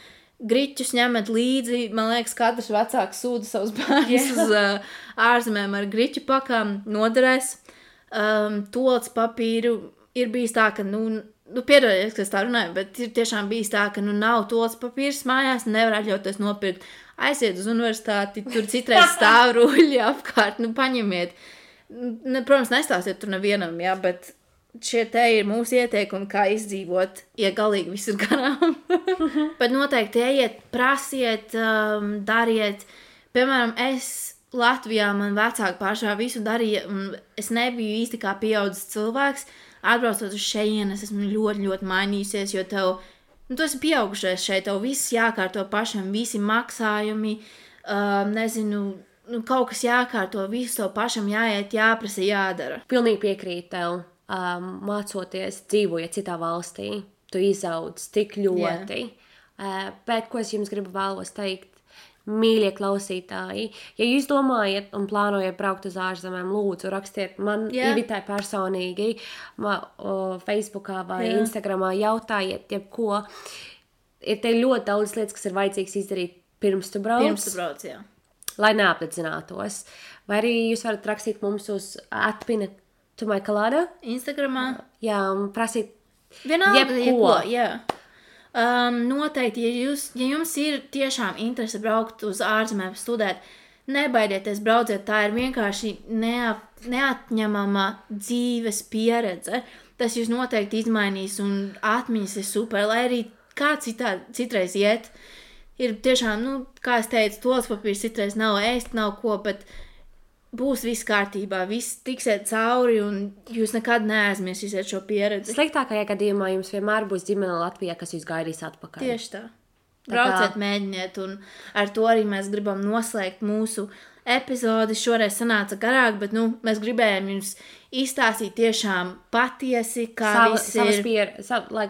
Griķus ņemat līdzi, man liekas, katrs vecāks sūda savus bērnus uz ārzemēm ar griķu pakām, noderēs. Toalets papīru ir bijis tā, ka, piedodiet, ka es tā runāju, bet ir tiešām bijis tā, ka, nav toalets papīrs mājās, nevar atļauties nopirkt. Aiziet uz universitāti, tur citreiz stāv ruļļi apkārt, paņemiet. Protams, nestāstiet tur nevienam, jā, bet šie te ir mūsu ieteikumi, kā izdzīvot, ja galīgi viss ir garām. Bet noteikti ejiet, prasiet, dariet. Piemēram, Latvijā man vecāki pašā visu darīja, un es nebiju īsti kā pieaudzis cilvēks. Atbraucot uz šejienu, es esmu ļoti, ļoti mainījusies, jo tu esi pieaugušais šeit, tev viss jākārto pašam, visi maksājumi, nezinu, kaut kas jākārto, visu to pašam jāiet, jāprasa, jādara. Pilnīgi piekrīt tev, mācoties, dzīvojot citā valstī, tu izaudz tik ļoti. Bet, ko es jums gribu vēlos teikt, mīļie klausītāji, ja jūs domājat un plānojat braukt uz ārzemēm, lūdzu, rakstiet man Ivitai personīgi, Facebookā vai Instagramā, jautājiet jebko. Ir te ļoti daudz lietas, kas ir vajadzīgs izdarīt pirms tu brauc. Pirms tu brauc, jā. Lai neapdedzinātos. Vai arī jūs varat rakstīt mums uz @pina2mycolada Instagramā. Jā, un prasīt Vienalga, jā. Noteikti, ja jums ir tiešām interese braukt uz ārzemēm studēt, nebaidieties brauciet, tā ir vienkārši neatņemama dzīves pieredze. Tas jūs noteikti izmainīs un atmiņas ir super, lai arī kā citreiz iet. Ir tiešām, kā es teicu, tols papīrs citreiz nav ēst, nav ko, bet būs viss kārtībā, viss tiksiet cauri un jūs nekad neaizmirsīsiet šo pieredzi. Sliktākajā gadījumā jums vienmēr būs ģimene Latvijā, kas jūs gaidīs atpakaļ. Tieši tā. Brauciet, mēģiniet, un ar to arī mēs gribam noslēgt mūsu epizodi. Šoreiz sanāca garāk, bet mēs gribējām jums izstāstīt tiešām patiesi, kā viss ir.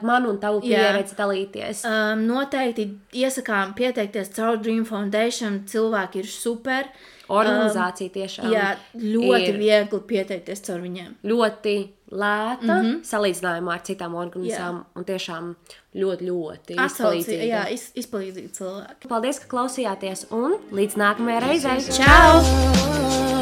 Manu un tavu pieredzi dalīties. Noteikti iesakām pieteikties caur Dream Foundation, cilvēki ir super. Organizācija tiešām ļoti viegli pieteikties caur viņiem. Ļoti lēta salīdzinājumā ar citām organizācijām un tiešām ļoti izpalīdzīga. Jā, izpalīdzīgi cilvēki. Paldies, ka klausījāties un līdz nākamajai reizei. Čau!